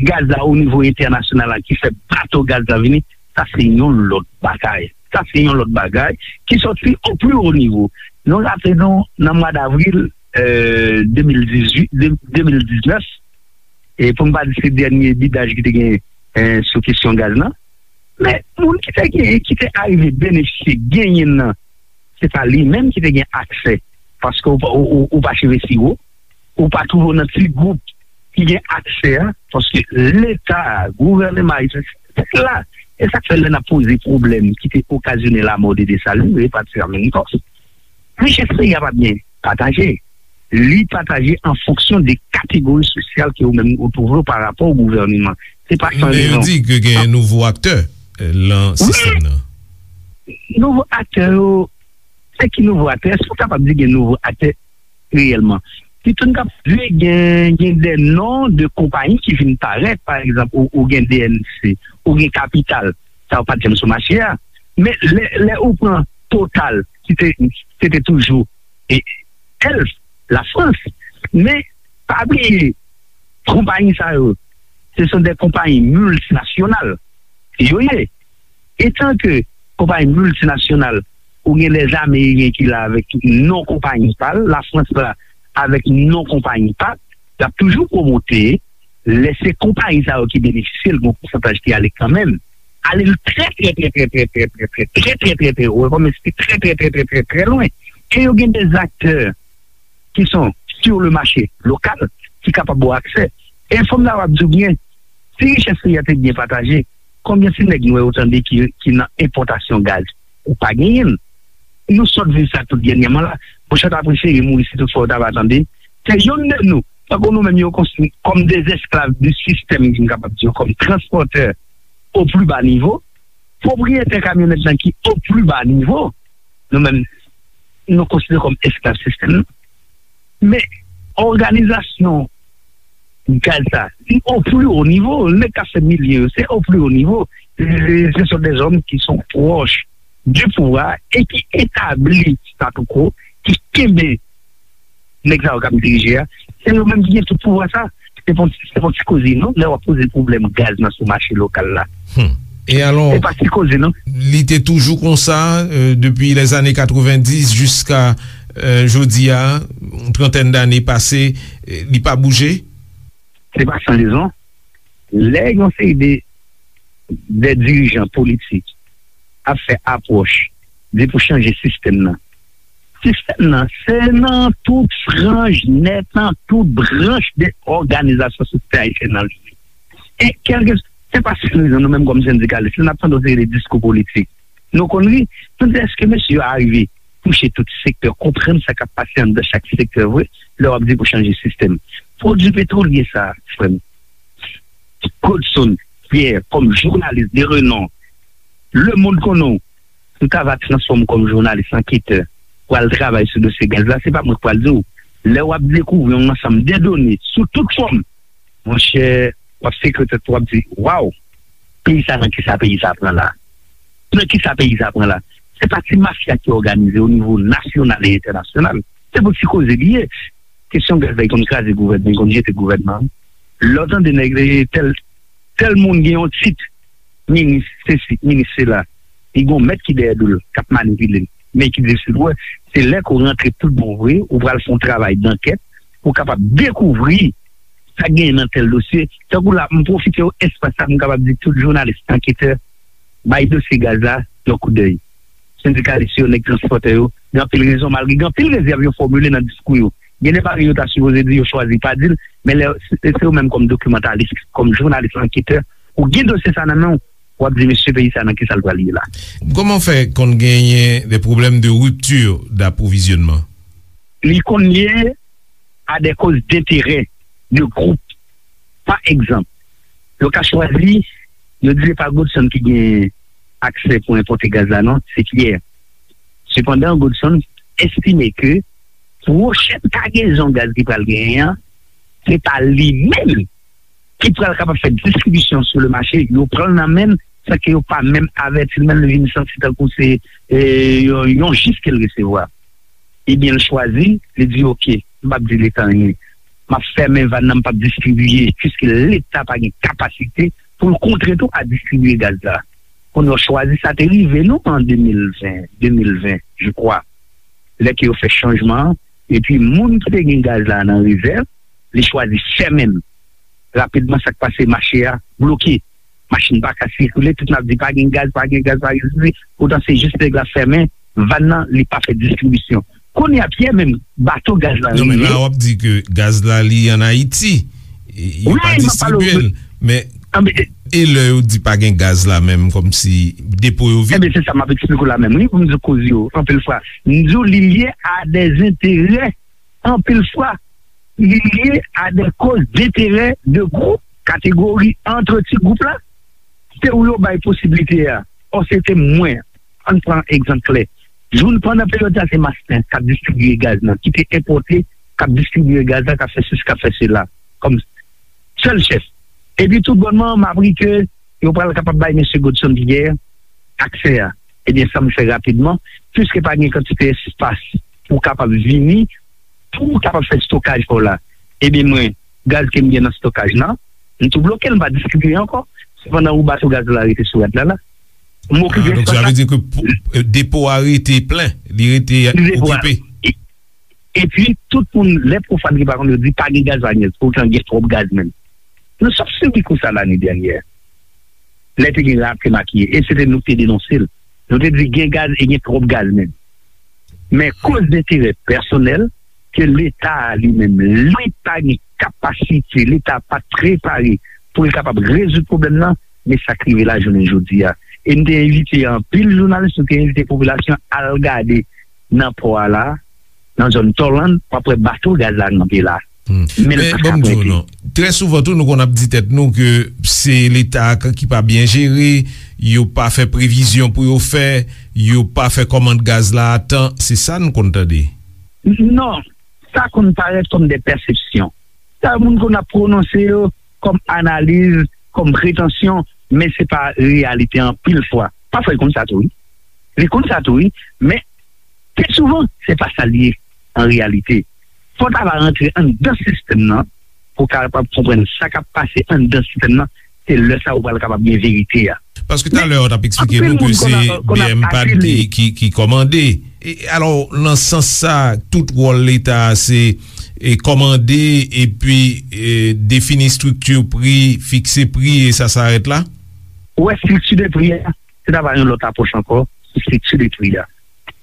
gaz la o nivo entènasyonal la, ki fè bato gaz la vini, sa se yon lòt bagay. Sa se yon lòt bagay ki sòti o pli wo nivo. Nou raple nou, nan mwa davril eh, de mil dizuit, de, de mil diznèf, e pou m pa di se dènye bidaj ki te gen eh, sou kesyon gaz lan. Men moun ki te gen, ki te arive benefisye, genyen nan, se pa li menm ki te gen aksè, paske ou, pa- ou, ou, ou pa cheve siwo, ou pa twouve w nan ti gwoup ki gen aksè a, paske Leta, gouvènman ayisyen, se la. E sa k fè lè n ap poze pwoblèm ki te okazyone lanmò de Desalin, e pati Amerikòs, richès peyi a pa byen pataje. Li pataje an fonksyon de kategori sosyal ke ou menm ou twouve w pa rapò o gouvènman. Se pa san rezon. Men yo di ke gen nouvo aktè eh, lan sistèm nan. Nouvo aktè yo, se ki nouvo aktè? Èske w kapab di gen nouvo aktè reyèlman? Si tout n k ap di, gen, gen de non de konpayi ki vin parèt, pa egzanp, ou, ou gen D N C, ou gen Kapital, sa yo pa t janm sou mache a. Men lè, lè ou pran Total, ki te, ki te toujou e Elf, Lafrans. Men pa bliye, konpayi sa yo, se son de konpayi miltinasyonal yo ye. Etan ke konpayi miltinasyonal, ou gen de ameriken ki la avèk non konpayi pa l, Lafrans la avèk non konpayi pa l, l ap toujou pwomote, lè se konpayi sa yo ki benefisye l, gen yon pousantaj ki ale kanmenm. Ale l trè, trè, trè, trè, trè, trè, trè, trè, trè, trè, trè, ou wè kòman se trè, trè, trè, trè, trè, trè lwen. E yo gen de aktè ki son sur le marché local ki kapab ba w aksè. E fò m ta w ap di w byen, si richès peyi a te byen pataje, konbyen ti nèg nou wè ou tande ki, ki nan enpòtasyon gaz? Ou pa genyen l. Nou sot viv sa tout dènyèman la. Monchè, w ta prefere mouri si toutfwa w ta va tande. Se youn de nou, tankou nou menm yo konstwi kòm de esklav de sistèm, m kapab di yo, kòm transpòtè o pli ba nivo, pwopriyetè kamyonèt lan ki o pli ba nivo, nou menm, nou konsidere kòm esklav sistèm nan. Men, òganizasyon gaz sa, li o pli wo nivo, nèg k ap fè milyon yo, se o pli wo nivo. Se, se, ce sont des hommes qui sont proches du pouvoir et qui établissent statu quo, ki kenbe nèg sa yo k ap dirije a, se yo menm ki gen tout pouvwa sa. Se pa, se pa ti koze non, lè w ap poze pwoblèm gaz nan sou mache lokal la. Hmm. E alò, se pa ti koze non. Li te toujou konsa, euh, depi lèzane katrevenndis jiska, euh, jodi a, yon trantèn dane pase, euh, li pa bouje? Se pa san rezon. Lè yon seri de, de dirijan politik ap fè apwòch de pou chanje sistèm nan, sistèm nan, se nan tout franj nèt, nan tout branch de òganizasyon sosyete ayisyèn nan li ye. E kèlke, se pa san rezon, nou menm kòm sendikalis, lè n ap tande yon seri de diskou politik, nou konn ri, nou di, èske mesye yo arive touche tout sektè, konprann sa k ap pase anndan chak sektè vre, lè w ap di pou chanje sistèm? Pwodui petwolye sa, frè m, Godson Pierre, kòm jounalis de renon, lemonn konnen w, si w ta va transfòme w kòm jounalis, anketè, pral travay sou dosye gaz la, se pa mwen k pral di w. Lè w ap dekouvri yon ansanm de done sou tout fòm, monchè, w ap sekre tèt ou, w ap di, waw, peyi sa, nan kisa peyi sa pran la? Nan kisa peyi sa pran la? Se pa ti mafya ki òganize o nivo nasyonal e entènasyonal. Se pou ti koze li ye. Kesyon gaz la, li konn kraze gouvènman, li konn jete gouvènman. Lè w tande nèg, eh, tèl, tèl moun gen yon tit, minis sesi, minis sela, li gen yon mèt ki dèyè do l, k ap manipile l. Men ki difisil pou wè, se lè ke w rantre tout bon vre, ou pral fè yon travay dankèt, pou w kapab dekouvri sa k genyen nan tèl dosye. Tankou la, m pwofite espas sa pou m kapab di tout jounalis, anketè, bay dosye gaz la yon koudèy. Sendikalis yo, nèg transpòtè yo, gen anpil rezon, malgre gen anpil rezèv yo fòmile nan diskou yo. Gen de bagay yo ta sipoze di, yo chwazi pa di l, men lè se se ou menm kòm dokimantalis, kòm jounalis anketè, ou gen dosye sa nan men w, w ap di, mesye, peyi sa nan kisa l pral ye la? Kòman w fè konn genyen de pwoblèm de ripti daprovizyònman? Li konn lye a de koz denterè de gwoup. Pa egzanp, yo ka chwazi, yo di se pa Godson ki gen aksè pou enpòte gaz la non, se Pierre. Sepandan, Godson estime ke pwochen kagezon gaz ki pral genyen an, se pa li menm ki pral kapab fè distribisyon sou le mache, yo pran l nan men l, san ke yo pa menm avèti l, menm li vin santi tankou se e, yon, yon jis ke l resevwa. Ebyen, l chwazi, li di, oke, m p ap di Leta anyen. M ap fèmen vàn nan, m p ap distribiye, piske Leta pa gen kapasite pou l kontre tou a distribiye gaz la. Kounye a, chwazi sa te rive nou an de mil ven, de mil ven, je crois. Lè ke yo fè chanjman an, epi moun ki te gen gaz la nan rezèv, li chwazi fèmen l. Rapidman, sa k pase, mache a bloke. Machin pa ka sikile, tout n ap di pa gen gaz, pa gen gaz, pa gen sesi. Poutan, se jis nèg la fèmen vàn nan, li pa fè distribisyon. Kounye a, Pyè, menm bato gaz la Non, men la, rive. W ap di ke gaz la, li ann Ayiti. E, yo Wi, pa m ap pale distribye l. Men, Anben, e lè yo di pa gen gaz la menm, kòmsi depo yo vid? Enben, se sa m ap eksplike w la menm, wi, pou m di w koz yo, anpil fwa. M di w, li lye a de enterè, anpil fwa, li lye a de koz denterè de gwoup, kategori, antre ti gwoup la. Se ou yo bay posiblite a. Ò, se te mwen. Ann pran egzanp klè. Jou, pandan peryòd sa, se Masten k ap distribiye gaz nan, ki te enpòte, k ap distribiye gaz la, k ap fè sesi, k ap fè sela, kòm sèl chèf. Epi, toutbònman, m apri ke yo pral kapab bay mesye Godson Pierre aksè a. Ebyen, sa m fè rapidman, piske pa gen kantite espas pou kapab vini, pou kapab fè stokaj pa w la. Ebyen, mwen, gaz ke m gen nan stokaj nan, m tou bloke l, m pa distribiye ankò. Sepandan, ou bato gaz la rete sou rad la, la. M Ah, okipe donk, sa espas la. Vle di ke pou, e, depo a rete plen, li rete Li depo a. okipe. E, epi, tout moun, lè pwofàn ki pa konn, yo di pa gen gaz Anyèz, poutan gen twòp gaz menm. Nou sot sibi kou sa lane dènyè. Lè te gen rapte makiye, e se te nou ki te denonse l. Nou te di gen gaz e gen twòp gaz menm. Men koz denterè pèsonèl, ke Leta a li menm, li pa gen kapasite, Leta pa t prepare pou l kapab rezoud pwoblèm nan, men sa k rive la jounen jodi a. E m te envite anpil jounalis, m te envite popilasyon al gade nan pò a la, nan zòn Tòland, w ap wè bato gaz la kanpe la. Hmm. Men l Men pa bon, m di w kapab non. Trè souvan tou, nou konn ap di tèt nou ke se Leta a k- ki pa byen jere, yo pa fè previzyon pou yo fè, yo pa fè kòmand gaz la a tan. Se sa n konn tande. Non, sa konn parèt kòm de pèsepsyon. Sa moun konn ap pwononse yo kòm analiz, kòm pretansyon, men se pa reyalite anpil fwa. Pafwa, li konn sa tou, wi. Li konn sa tou, wi. Men, pi souvan, se pa sa l ye an reyalite. Fò w ta va rantre anndan sistèm nan pou w kapab konprann sa k ap pase anndan sistèm nan. Se lè sa a ou pral kapab gen verite a. Paske talè w t ap eksplike nou ke se B M pad ki, ki, ki kòmande. E, alò, nan sans sa, tout wòl Leta a se e kòmande epi e defini estrikti pri, fikse pri e sa sa rèt la? Ou wè estrikti de pri a, se ta va yon lòt apwòch ankò sou estrikti de pri a.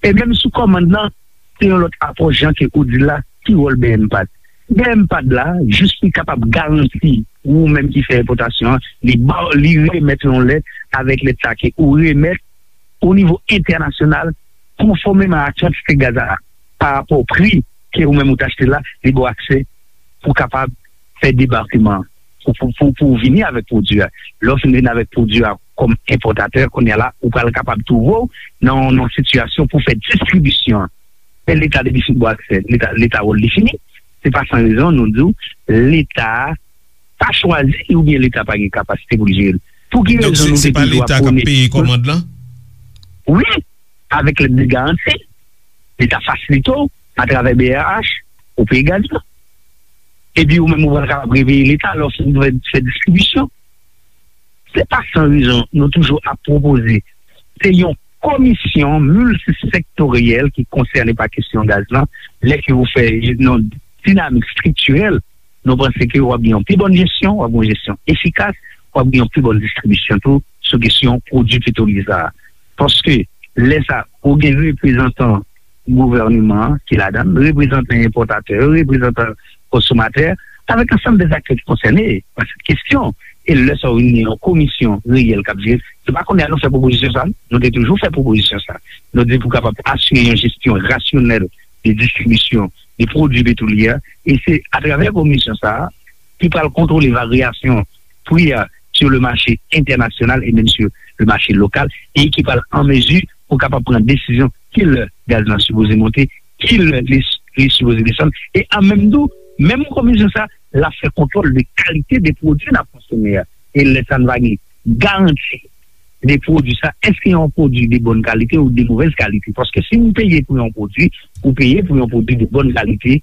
E menm sou kòmand lan, se yon lòt apwòch jan ke ou di la, ki wòl B M pad? B M pad la, jis li kapab garanti ou menm ki fè enpòtasyon an, li ba w, li remèt yon lèt avèk lèt sa ke ou remèt o nivo entènasyonal, konfòmeman a kantite gaz la, pa rapò pri ke ou menm ou t achte la, li ba w aksè pou kapab fè debakeman, pou, pou, pou, pou w vini avèk pwodui a. Lè w fin vin avèk pwodui a kòm enpòtatè, kounye a la, ou pral kapab twouve w nan, nan yon sitiyasyon pou fè distribisyon an. Men Leta depi fin ba w aksè, Leta, Leta wòl li fini. Se pa san rezon nou di w, Leta a pa chwazi oubyen Leta pa gen kapasite pou l jere l. Pou ki Donk, rezon se, nou se te pa toujou ap Leta k ap prone peye kòmand lan? Wi, avèk lèt de garanti, Leta fasilite w atravè B R H, ou peye gaz la. Epi ou menm ou pral kapab repeye Leta lè w fin fè, fè distribisyon. Se pa san rezon nou toujou ap pwopoze. Se yon komisyon miltisektoryèl ki konsène pa kesyon gaz lan. Lè ke ou fè yon dinamik estriktirèl, nou panse ke w ap gen yon pi bòn jesyon, w ap gen yon jesyon efikas, w ap gen yon pi bòn distribisyon tou sou kesyon pwodui petwolye sa a. Paske lè sa, ou gen reprezantan gouvènman an ki ladan l, reprezantan enpòtatè yo, reprezantan konsomatè, avèk ansanm dè aktè ki konsène pa sèt kesyon. E lè sa, ou vin gen yon komisyon reyèl k ap jere. Se pa kounye a nou fè pwopozisyon sa, nou te toujou fè pwopozisyon sa. Nou di pou kapab asire yon jesyon rasyonèl de distribisyon de pwodui petwolye a, e se atravè komisyon sa a ki pral kontwole varyasyon pri a sur le marché international et même sur le marché local, e ki pral an mezi pou kapab pran desizyon ki lè gaz lan sipoze monte, ki lè li, li sipoze desann. E an menm tou, menm komisyon sa, l ap fè kontwòl de kalite de pwodui n ap konsome a. E lè sa, n va gen garanti de pwodui sa, èske yon pwodui de bòn kalite ou de movèz kalite. Paske si m peye pou yon pwodui, ou peye pou yon pwodui de bòn kalite.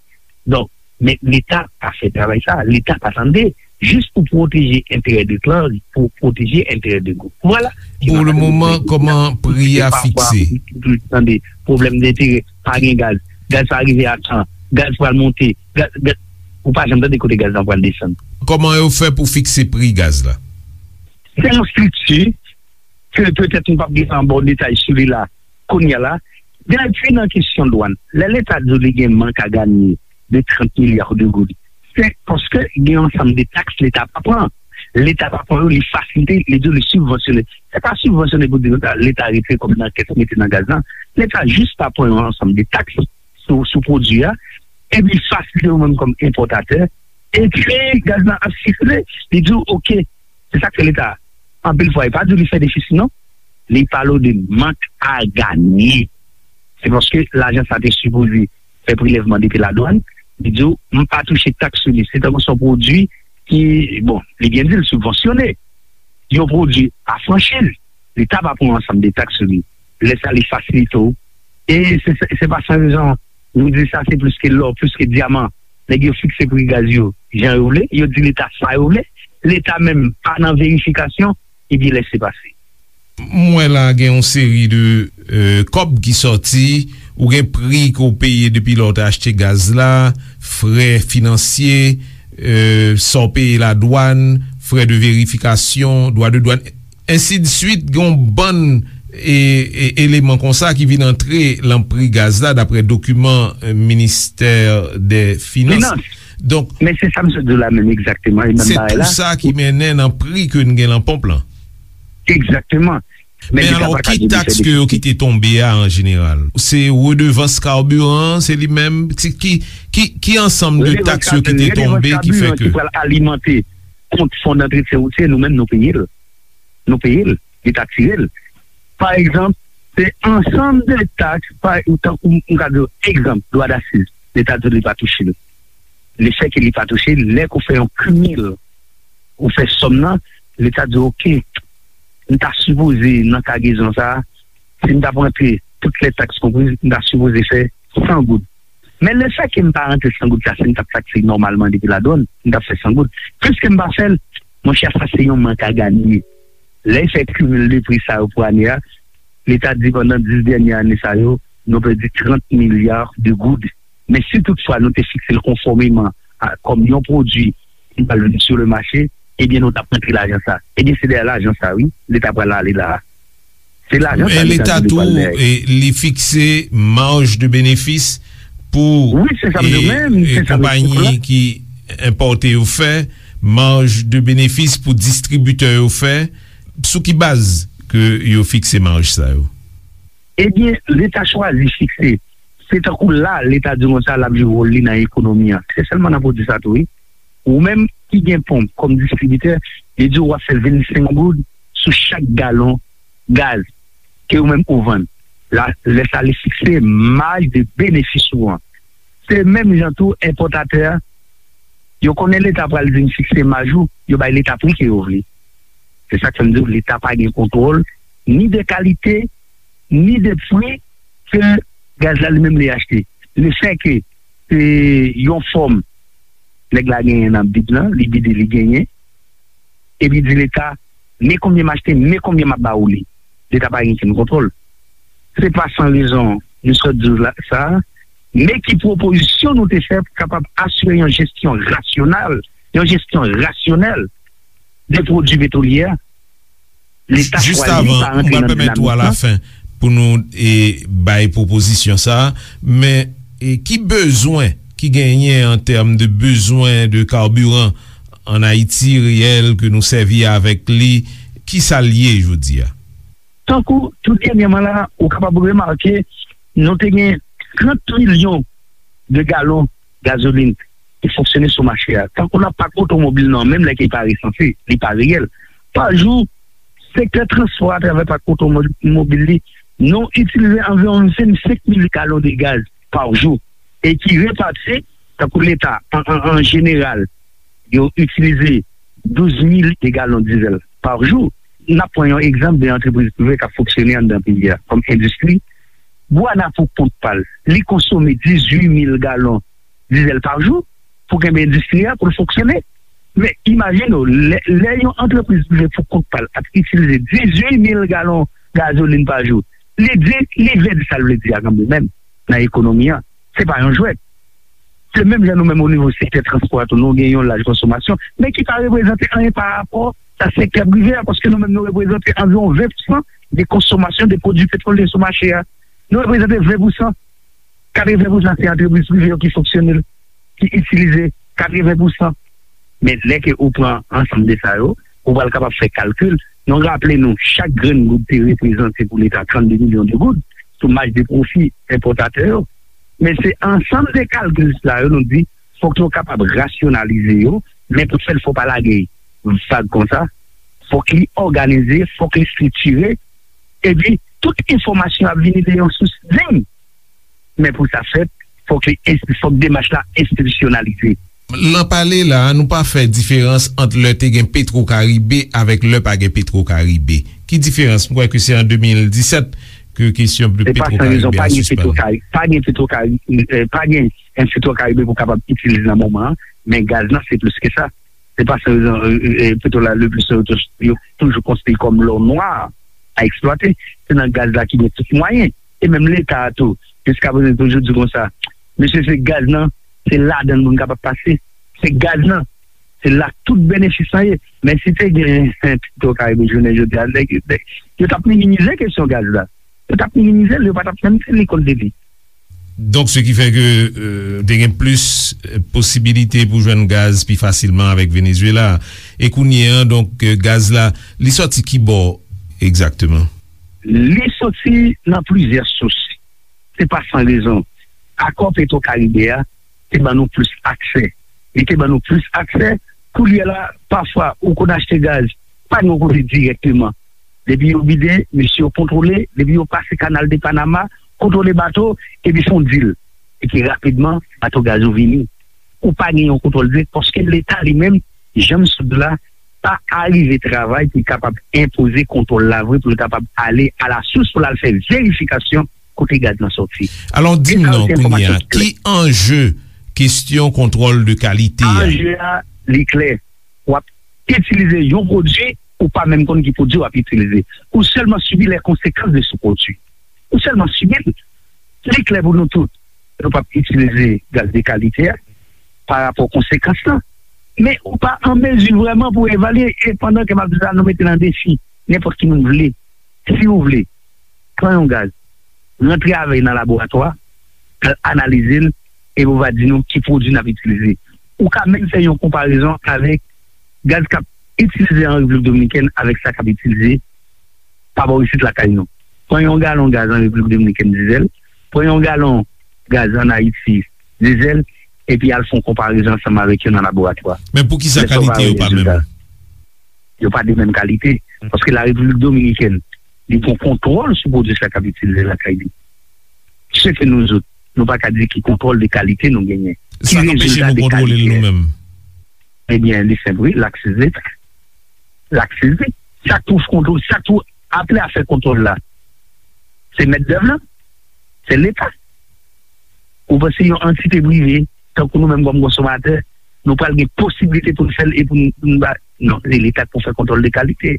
Donk, men Leta pa fè travay sa. Leta pa tande. Jis pou pwoteje enterè de klan, pou pwoteje enterè de gwoup. Vwala. Pou le moman, kòman pri a fikse? Tande pwoblèm denterè, pa gen gaz, gaz pa rive a tan, gaz pral monte, gaz, gaz, ou pa janm tande kote gaz lan pral desann. Kòman yo fè pou fikse pri gaz la? Se yon estrikti ke petèt nou p ap gen tan ba w detay sou li la, kounye a la. Depi nan kesyon dwàn, lè Leta di w li gen mank a ganye de trant milya de goud, se paske gen yon ansanm de taks Leta pa pran. Leta pa pran yo, li fasilite, li di w li sibvansyone. Se pa sibvansyone pou di Leta, Leta retire kòb nan kès mete nan gaz lan. Leta jis pa pran yon ansanm de taks sou, sou pwodui a, epi fasilite ou menm kòm enpòtatè, epi gaz lan ap sikile, li di w, oke, se sa k fè Leta, anpil fwa, li pa di w li fè defisi, non. Li pale w de mank a ganye. Se paske lajan sa te sipoze fè prelèvman depi ladwàn, li di w, m pa touche taks sou li. Se tankou se yon pwodui ki, bon, li byen di l sibvansyone. Yon pwodui a franchiz, Leta pa pran yon ansanm de taks sou li. Lè sa, li fasilite w. E se, se, se pa san rezon, nou di sa se plis ke lò, plis ke dyaman. Nèg yo fikse pri gaz yo jan yo vle, yo di Leta sa yo vle. Leta menm pa nan verifikasyon, epi lèse pase. M wè la gen yon seri de, euh, kòb ki sòti, ou gen pri ke w peye depi lè w te achte gaz la, frè finansye, euh, sa w peye ladwàn, frè de verifikasyon, dwa de dwàn, ensi de swit, gen yon bann e, e, eleman konsa ki vin antre lan pri gaz la, daprè dokiman, euh, ministè dè finans. Finans. Donk, men se sa m sot di w la menm egzakteman. E menm se bagay tou la, sa ki mennen nan pri ke n gen lan ponp lan. Egzakteman. Men Men Leta alò, pa ka ki di li fè taks ke yo defisi. Kite tonbe a an jeneral? Se redevans kabiran, se li menm? Ti, ki, ki, ki ansanm de Redevans taks yo kabi-, kite redevans tonbe ki fè kabiran ki ke pral alimante kont fon dantretyen woutye, nou menm nou peye l. Nou peye l. Leta tire l. Pa egzanp, se ansanm de taks, pa, tankou m ka di w, egzanp, dwa dasiz, Leta di w li pa touche l. Lefètke li pa touche l, lè ke w fè yon kimil, ou fè sòm nan, Leta di w, oke, m ta sipoze, nan kagezon sa a, si m t ap rantre tout lè taks konpriz, m ta sipoze fè san goud. Men lefètke m pa rantre san goud sa, si m t ap taksel nòmalman depi ladwàn, m t ap fè san goud. Piske m pa fè l, monchè, sa se yon mank a ganye. Lè y fè kimil de pri sa yo pou ane a, Leta di pandan dis dènye ane sa yo, nou pèdi trant milya de goud. Men si toutfwa nou te fikse l konfòmeman a, kòm yon pwodui ki pral vin sou le mache, ebyen, nou t ap rantre lajan sa. Ebyen, se dèyè lajan sa, wi, Leta pral ale la a. Se lajan sa Men Leta Leta di li tou, pral dèyè. E, li fikse maj de benefis pou, Wi, se sa m di w e, menm, e, se sa m eksplike la. Konpayi ki enpòte yo fè, maj de benefis pou distribitè yo fè. Sou ki baz ke yo fikse maj sa yo? Ebyen, Leta chwazi fikse. Se tankou la, Leta di konsa, l ap jwe wòl li nan ekonomi an. Se sèlman nan pwodui sa tou, wi. Ou menm ki gen ponp kòm distribitè, li di w w ap fè vennsenk goud sou chak galon gaz ke ou menm ou vann. La, lè sa, li fikse maj de benefis ou an. Se menm jan tou, enpòtatè a, yo konnen Leta pral vin fikse maj ou, yo bay Leta pri ke yo vle. Se sa k fè m di w, Leta pa gen kontwòl ni de kalite, ni de pri ke gaz la li menm li achte. Lefètke se yon fòm nèg la genyen nan bid lan, li bide, li genyen, epi di Leta, men konbyen m achte, men konbyen m ap ba ou li. Leta pa gen okenn kontwòl. Se pa san rezon nou sot di w la, sa, men ki pwopozisyon nou te fè pou kapab asire yon jesyon rasyonal, yon jesyon rasyonèl de pwodui petwolye a. Leta chwazi pa rantre nan dinamik lan. Pou nou e, bay pwopozisyon sa a, men e, ki bezwen ki genyen an tèm de bezwen de kabiran an Ayiti reyèl ke nou sèvi avèk li, ki sa l ye jodi a? Tankou tou dènyèman la, ou kapab remake, nou te gen trant milyon de galon gazolin ki fonksyone sou mache a. Tankou nan pak otomobil nou an, menm lè ke li pa resanse, li pa reyèl. Pa jou, sektè transpò atravè pak otomobil li, nou itilize anviwon vennsenk mil galon de gaz pa jou, e ki repati, tankou Leta an, an, an jeneral, yo itilize douz mil de galon dizèl pa jou. N ap pran yon egzanp de antrepriz prive k ap fonksyone anndan peyi a, kòm endistri. Bwa Nafou pou kont pa l, li konsome dizuit mil galon dizèl pa jou pou kenbe endistri a, pou l fonksyone. Men, imajine w, lè, lè yon antrepriz prive pou kont pa l ap itilize dizuit mil galon gazolin pa jou, li di, li vle di sa l vle di a kanmenm, nan ekonomi an. Se pa yon jwèt. Se menm jan nou menm o nivo sektè transpò a tou, nou gen yon laj konsomasyon, men ki pa reprezante anyen pa rapò a sektè prive a, paske nou menm nou reprezante anviwon ven pousan de konsomasyon de pwodui petwolye sou mache a. Nou reprezante ven pousan. Katreven pousan se antrepriz prive yo ki fonksyone l, ki itilize katreven pousan. Men lè ke ou pran ansanm de sa yo, ou pral kapab fè kalkil. Nou raple nou, chak grenn goud te reprezante pou Leta trannde milyon de goud sou maj de pwofi enpòtatè yo. Men se ansanm de kalkil sa yo nou di, fòk nou kapab rasyonalize yo, men pou fè l, fò pa lage vag konsa, fòk li òganize, fòk li estriktire, epi tout enfòmasyon ap vini de yon sous diy. Men pou sa fèt, fòk li ensti-, fòk demach la enstitisyonalize. Nan pale la, nou pa fè diferans ant lè te gen Petro Caribe avèk lè pa gen Petro Caribe. Ki diferans? M kwè ke se an de mil disèt ke kesyon de Petro Caribe a sispann. Se pa san rezon, pa gen Petro Caribe, pa gen Petro Caribe, eh, pa gen, eh, Petro Caribe pou kapab itilize nan moman an, men gaz lan se plis ke sa. Se pa san rezon, eh, eh, eh, petwòl la, le plis yo, yo toujou konsidere kòm lò nwa a eksplwate. Se nan gaz la ki gen tout mwayen. E menm Leta a tou, jiskaprezan toujou di konsa, mesye, se gaz lan, se ladan l pou n kapab pase. Se gaz lan, se la tout benefis lan ye. Men si te gen Petro Caribe jounen jodi a, nèg, nèg, yo t ap minimize kesyon gaz la. Yo t ap minimize l, yo pa t ap menm tini kont de li. Donk, se ki fè ke, euh, te gen plis, euh, posibilite pou jwenn gaz pi fasilman avèk Venezuela. E kounye a, donk, euh, gaz la, li sòti ki bò egzakteman? Li sòti nan plizyè sous. Se pa san rezon. Akò Petro Caribe a te ban nou plis aksè. Li te ban nou plis aksè. Koulye a la, pafwa, ou konn achte gaz, pa gen yon kote dirèkteman. Depi yo vide, mesye yo kontwole, depi yo pase kanal de Panama, kontwole bato, epi fè yon dil. Epi rapidman, bato gaz ou vini. Ou pa gen yon kontwòl dirèk, paske Leta li menm, janm sot la, pa arive travay pou l kapab enpoze kontwòl la vre, pou l kapab ale alasous, pou l al fè verifikasyon kote gaz lan sòti. Alò, di m non, kounye a, ki anje kesyon kontwòl de kalite a? Anje a, li klè. W ap itilize yon pwodui, ou pa menm konn ki pwodui w ap itilize. Ou sèlman sibi lè konsekans de sou pwodui. Ou sèlman sibi l. Li klè pou nou tout. Nou p ap itilize gaz de kalite a pa rapò konsekans lan. Men ou pa an mezi vrèman pou evalye, e pandan ke m ap di sa, nou mete nan defi nenpòt ki moun vle, si ou vle, pran yon gaz, rantre avè l nan laboratwa, al analize l, epi ou va di nou ki pwodui n ap itilize. Ou ka menm fè yon konparezon avèk gaz k ap itilize an Repiblik Dominikèn avèk sa k ap itilize pa bò isit lakay nou. Pran yon galon gaz an Repiblik Dominikèn dizèl, pran yon galon gaz an Ayiti dizèl, epi al fè yon konparezon ansanm avèk yo nan laboratwa. Men poukisa kalite yo pa menm? Yo pa de menm kalite. Paske la Repiblik Dominikèn, li pran kontwòl sou pwodui sa k ap itilize lakay li. Se ke nou zòt, nou pa ka di ki kontwòl de kalite nou genyen. Sa k anpeche nou kontwole l nou menm? Ebyen, li senp, wi, l aksize. L aksize. Sa k pou kontwòl, sa k pou aple a fè kontwòl la? Se mèt dèv lan? Se Leta? Ou panse yon antite prive, tankou nou menm kòm konsomatè, nou pral gen posiblite pou n fè l e pou n, pou n ba, non, se Leta k pou fè kontwòl de kalite.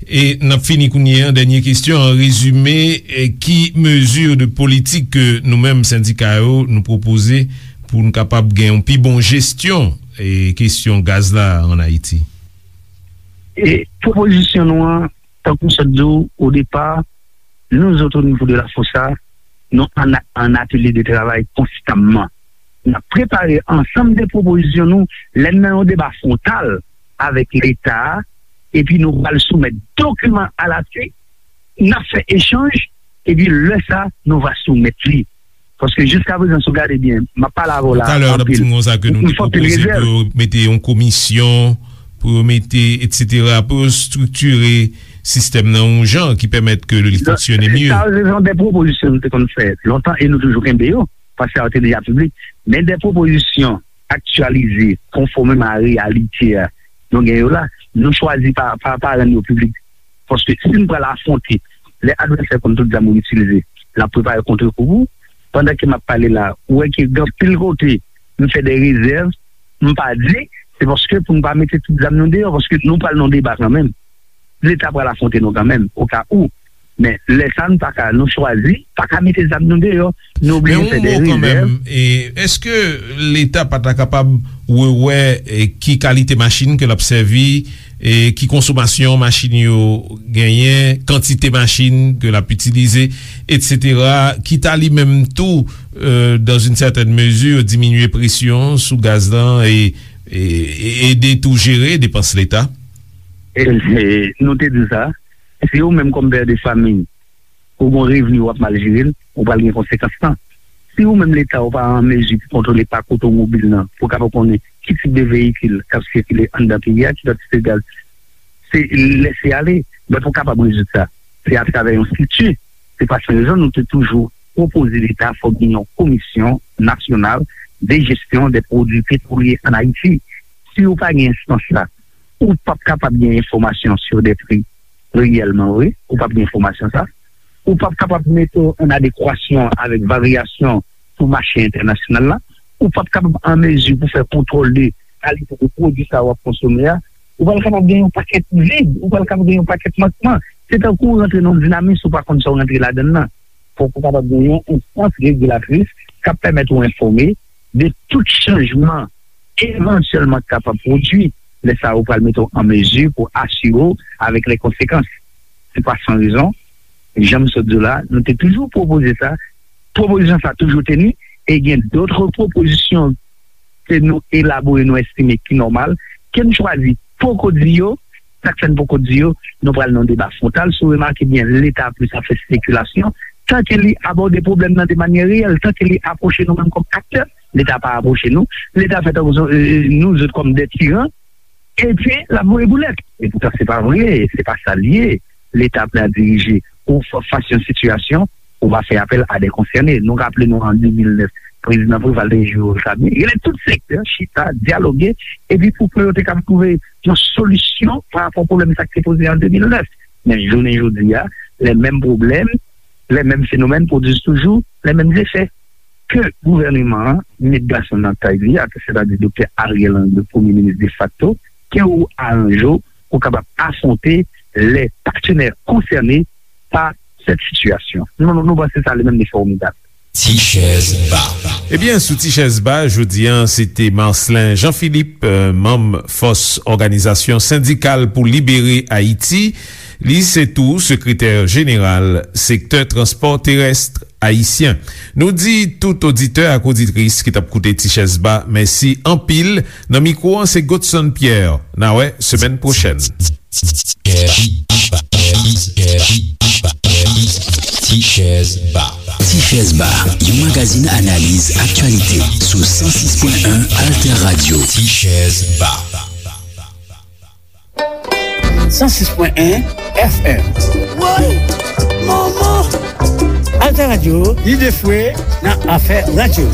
E n ap fini kounye a, dènye kesyon, an rezime, e ki mezi de politik ke nou menm sendika yo nou pwopoze pou n kapab gen yon pi bon jesyon e kesyon gaz la an Ayiti? E pwopozisyon nou an, Tankou m sot di w o depa, nou zòt o nivo de la FOSA, nou an, an atelye de travay konstamman. N ap prepare ansanm de pwopozisyon nou, lè n nan yon deba fwontal avèk Leta, epi nou pral soumèt dokiman alatwi, n ap fè echanj, epi lè sa, nou va soumèt li. Paske jiskaprezan, si w gade byen, m ap pale avè w la anpil. Talè w t ap di m konsa ke nou te pwopoze pou yo mete yon komisyon, pou yo mete, etsetera, pou yo estrikire sistèm nan yon jan ki pèmèt ke li fonksyone mye. Sa se yon de pwopozisyon nou te konn fè lontan e nou toujou kenbe yo, paske sa yo te deja piblik. Men de pwopozisyon aktyalize, konfòmeman a reyalite a nou gen yo la, nou chwazi pa, pa, pa rann yo piblik. Paske si n pral afwonte, lè advèsè konn tout zam ou itilize, l ap prepare kontrekou pou ou. Pandan ke m ap pale la, ou wè ke gen anpil kote, m fè de rezèv, m pa di, se paske pou n pa mete tout zam nou deyò, paske nou pral nan deba kanmenm. Leta pral afwonte nou kanmenm, oka ou. Men, lè sa, n pa ka, nou chwazi, pa ka mete zam nou deyò, nou oblije fè de rezèv. Men yon mo kanmenm, e, èske Leta pa ta kapab rewè, e, ki kalite machin ke l ap sèvi, e, ki konsomasyon machin yo genyen, kantite machin ke l ap itilize, etsetera, ki ta li menm tou, e, dans une certaine mesure, diminye presyon sou gaz lan e, e, e ede tou jere depans Leta? E, e, nou te di sa, si ou menm kòm pè de fanmi, ou gen yon revni w ap mal jere l, ou pral gen konsekans lan. Si ou menm Leta ou pa an mezi pou kontwole pak otomobil lan, pou w kapab konnen ki tip de veyikil k ap sikile anndan peyi a, ki kantite gaz, se lese ale. Men pou w kapab rezoud sa, se atravè yon estrikti. Se pa san rezon nou te toujou pwopoze Leta fòk gen yon komisyon nasyonal de jesyon de pwodui petwolye ann Ayiti. Si ou pa gen enstans sa, ou p ap kapab gen enfòmasyon sou de pri reyèlman vre, ou p ap gen enfòmasyon sa. Ou p ap kapab mete w an adekwasyon avèk varyasyon sou mache entènasyonal la. Ou p ap kapab an mezi pou fè kontwòl de kalite de pwodui sa w ap konsome a. Ou pral kapab gen yon pakèt vid, ou pral kapab gen yon pakèt mankman. Se tankou w rantre nan yon dinamis, ou pa konn sa w rantre ladan l lan. Fòk ou kapab gen yon enstans regilatris k ap pèmèt ou enfòme de tout chanjman evantyèlman k kapab pwodui. Lè sa a, ou pral mete w an mezi pou asire w avèk lè konsekans. Se pa san rezon, jan m sot di w la, nou te toujou pwopoze sa. Pwopozisyon sa a toujou teni, e gen dòt pwopozisyon ke nou elabore, nou estime ki nòmal, ke n chwazi poko di yo. Sa k fè n poko di yo, nou pral nan deba fwontal. Si w remake byen, Leta plis ap fè espekilasyon. Tanke li abòde pwoblèm nan de manyè reyèl, tanke li apwoche nou menm kòm aktè, Leta pa apwoche nou. Leta fè tankou se, e, e, nou zòt kòm de tiran, epi l ap voye boulèt. Epoutan, se pa vre, se pa sa l ye. Leta pral dirije ou fa-, fas yon sitiyasyon, ou va fè apèl a de konsène. Nou raple nou an de mil nèf, prezidan Preval te jwe wòl sa byen. Rele tout sektè, chita, dyaloge, epi pou ke yo te kab twouve yon solisyon pa rapò pwoblèm sa k te poze an de mil nèf. Men jounen jodi a, lè menm pwoblèm, lè menm fenomèn pwodui toujou lè menm efè. Ke gouvèneman an met gason nan kay li a, sètadi Doktè Ariel Henry, premye minis defakto, ke ou aranje w pou w kapab afwonte lè patenè konsène pa sèt sitiyasyon. Nou, nou, nou panse sa li menm li fòmidab. Ti chèz ba. Ebyen, sou Ti chèz ba, jodi a, se te Marcelin Jean Philippe, euh, manm Fòs Òganizasyon Sendikal pou Libere Ayiti. Li se tou sekretè jeneral sektè transpò terès ayisyen. Nou di tout oditè ak oditris ki t ap koute Ti chèz ba, mèsi anpil. Nan mikwo an, se Godson Pierre. N a wè semèn pwochèn. Ti chèz ba. Ti chèz ba, yon magazin analiz aktyalite sou san sis pwen en Alter Radio. Ti chèz ba. San sis pwen en F M. Woy! Manman! Alter Radio, lide fwe nan afè radyo.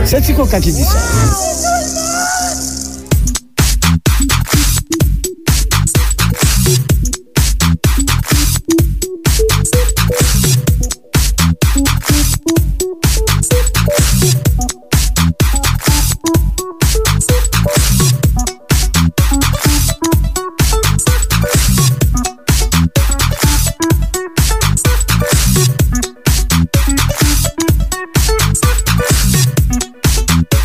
Se Ti Koka ki di sa.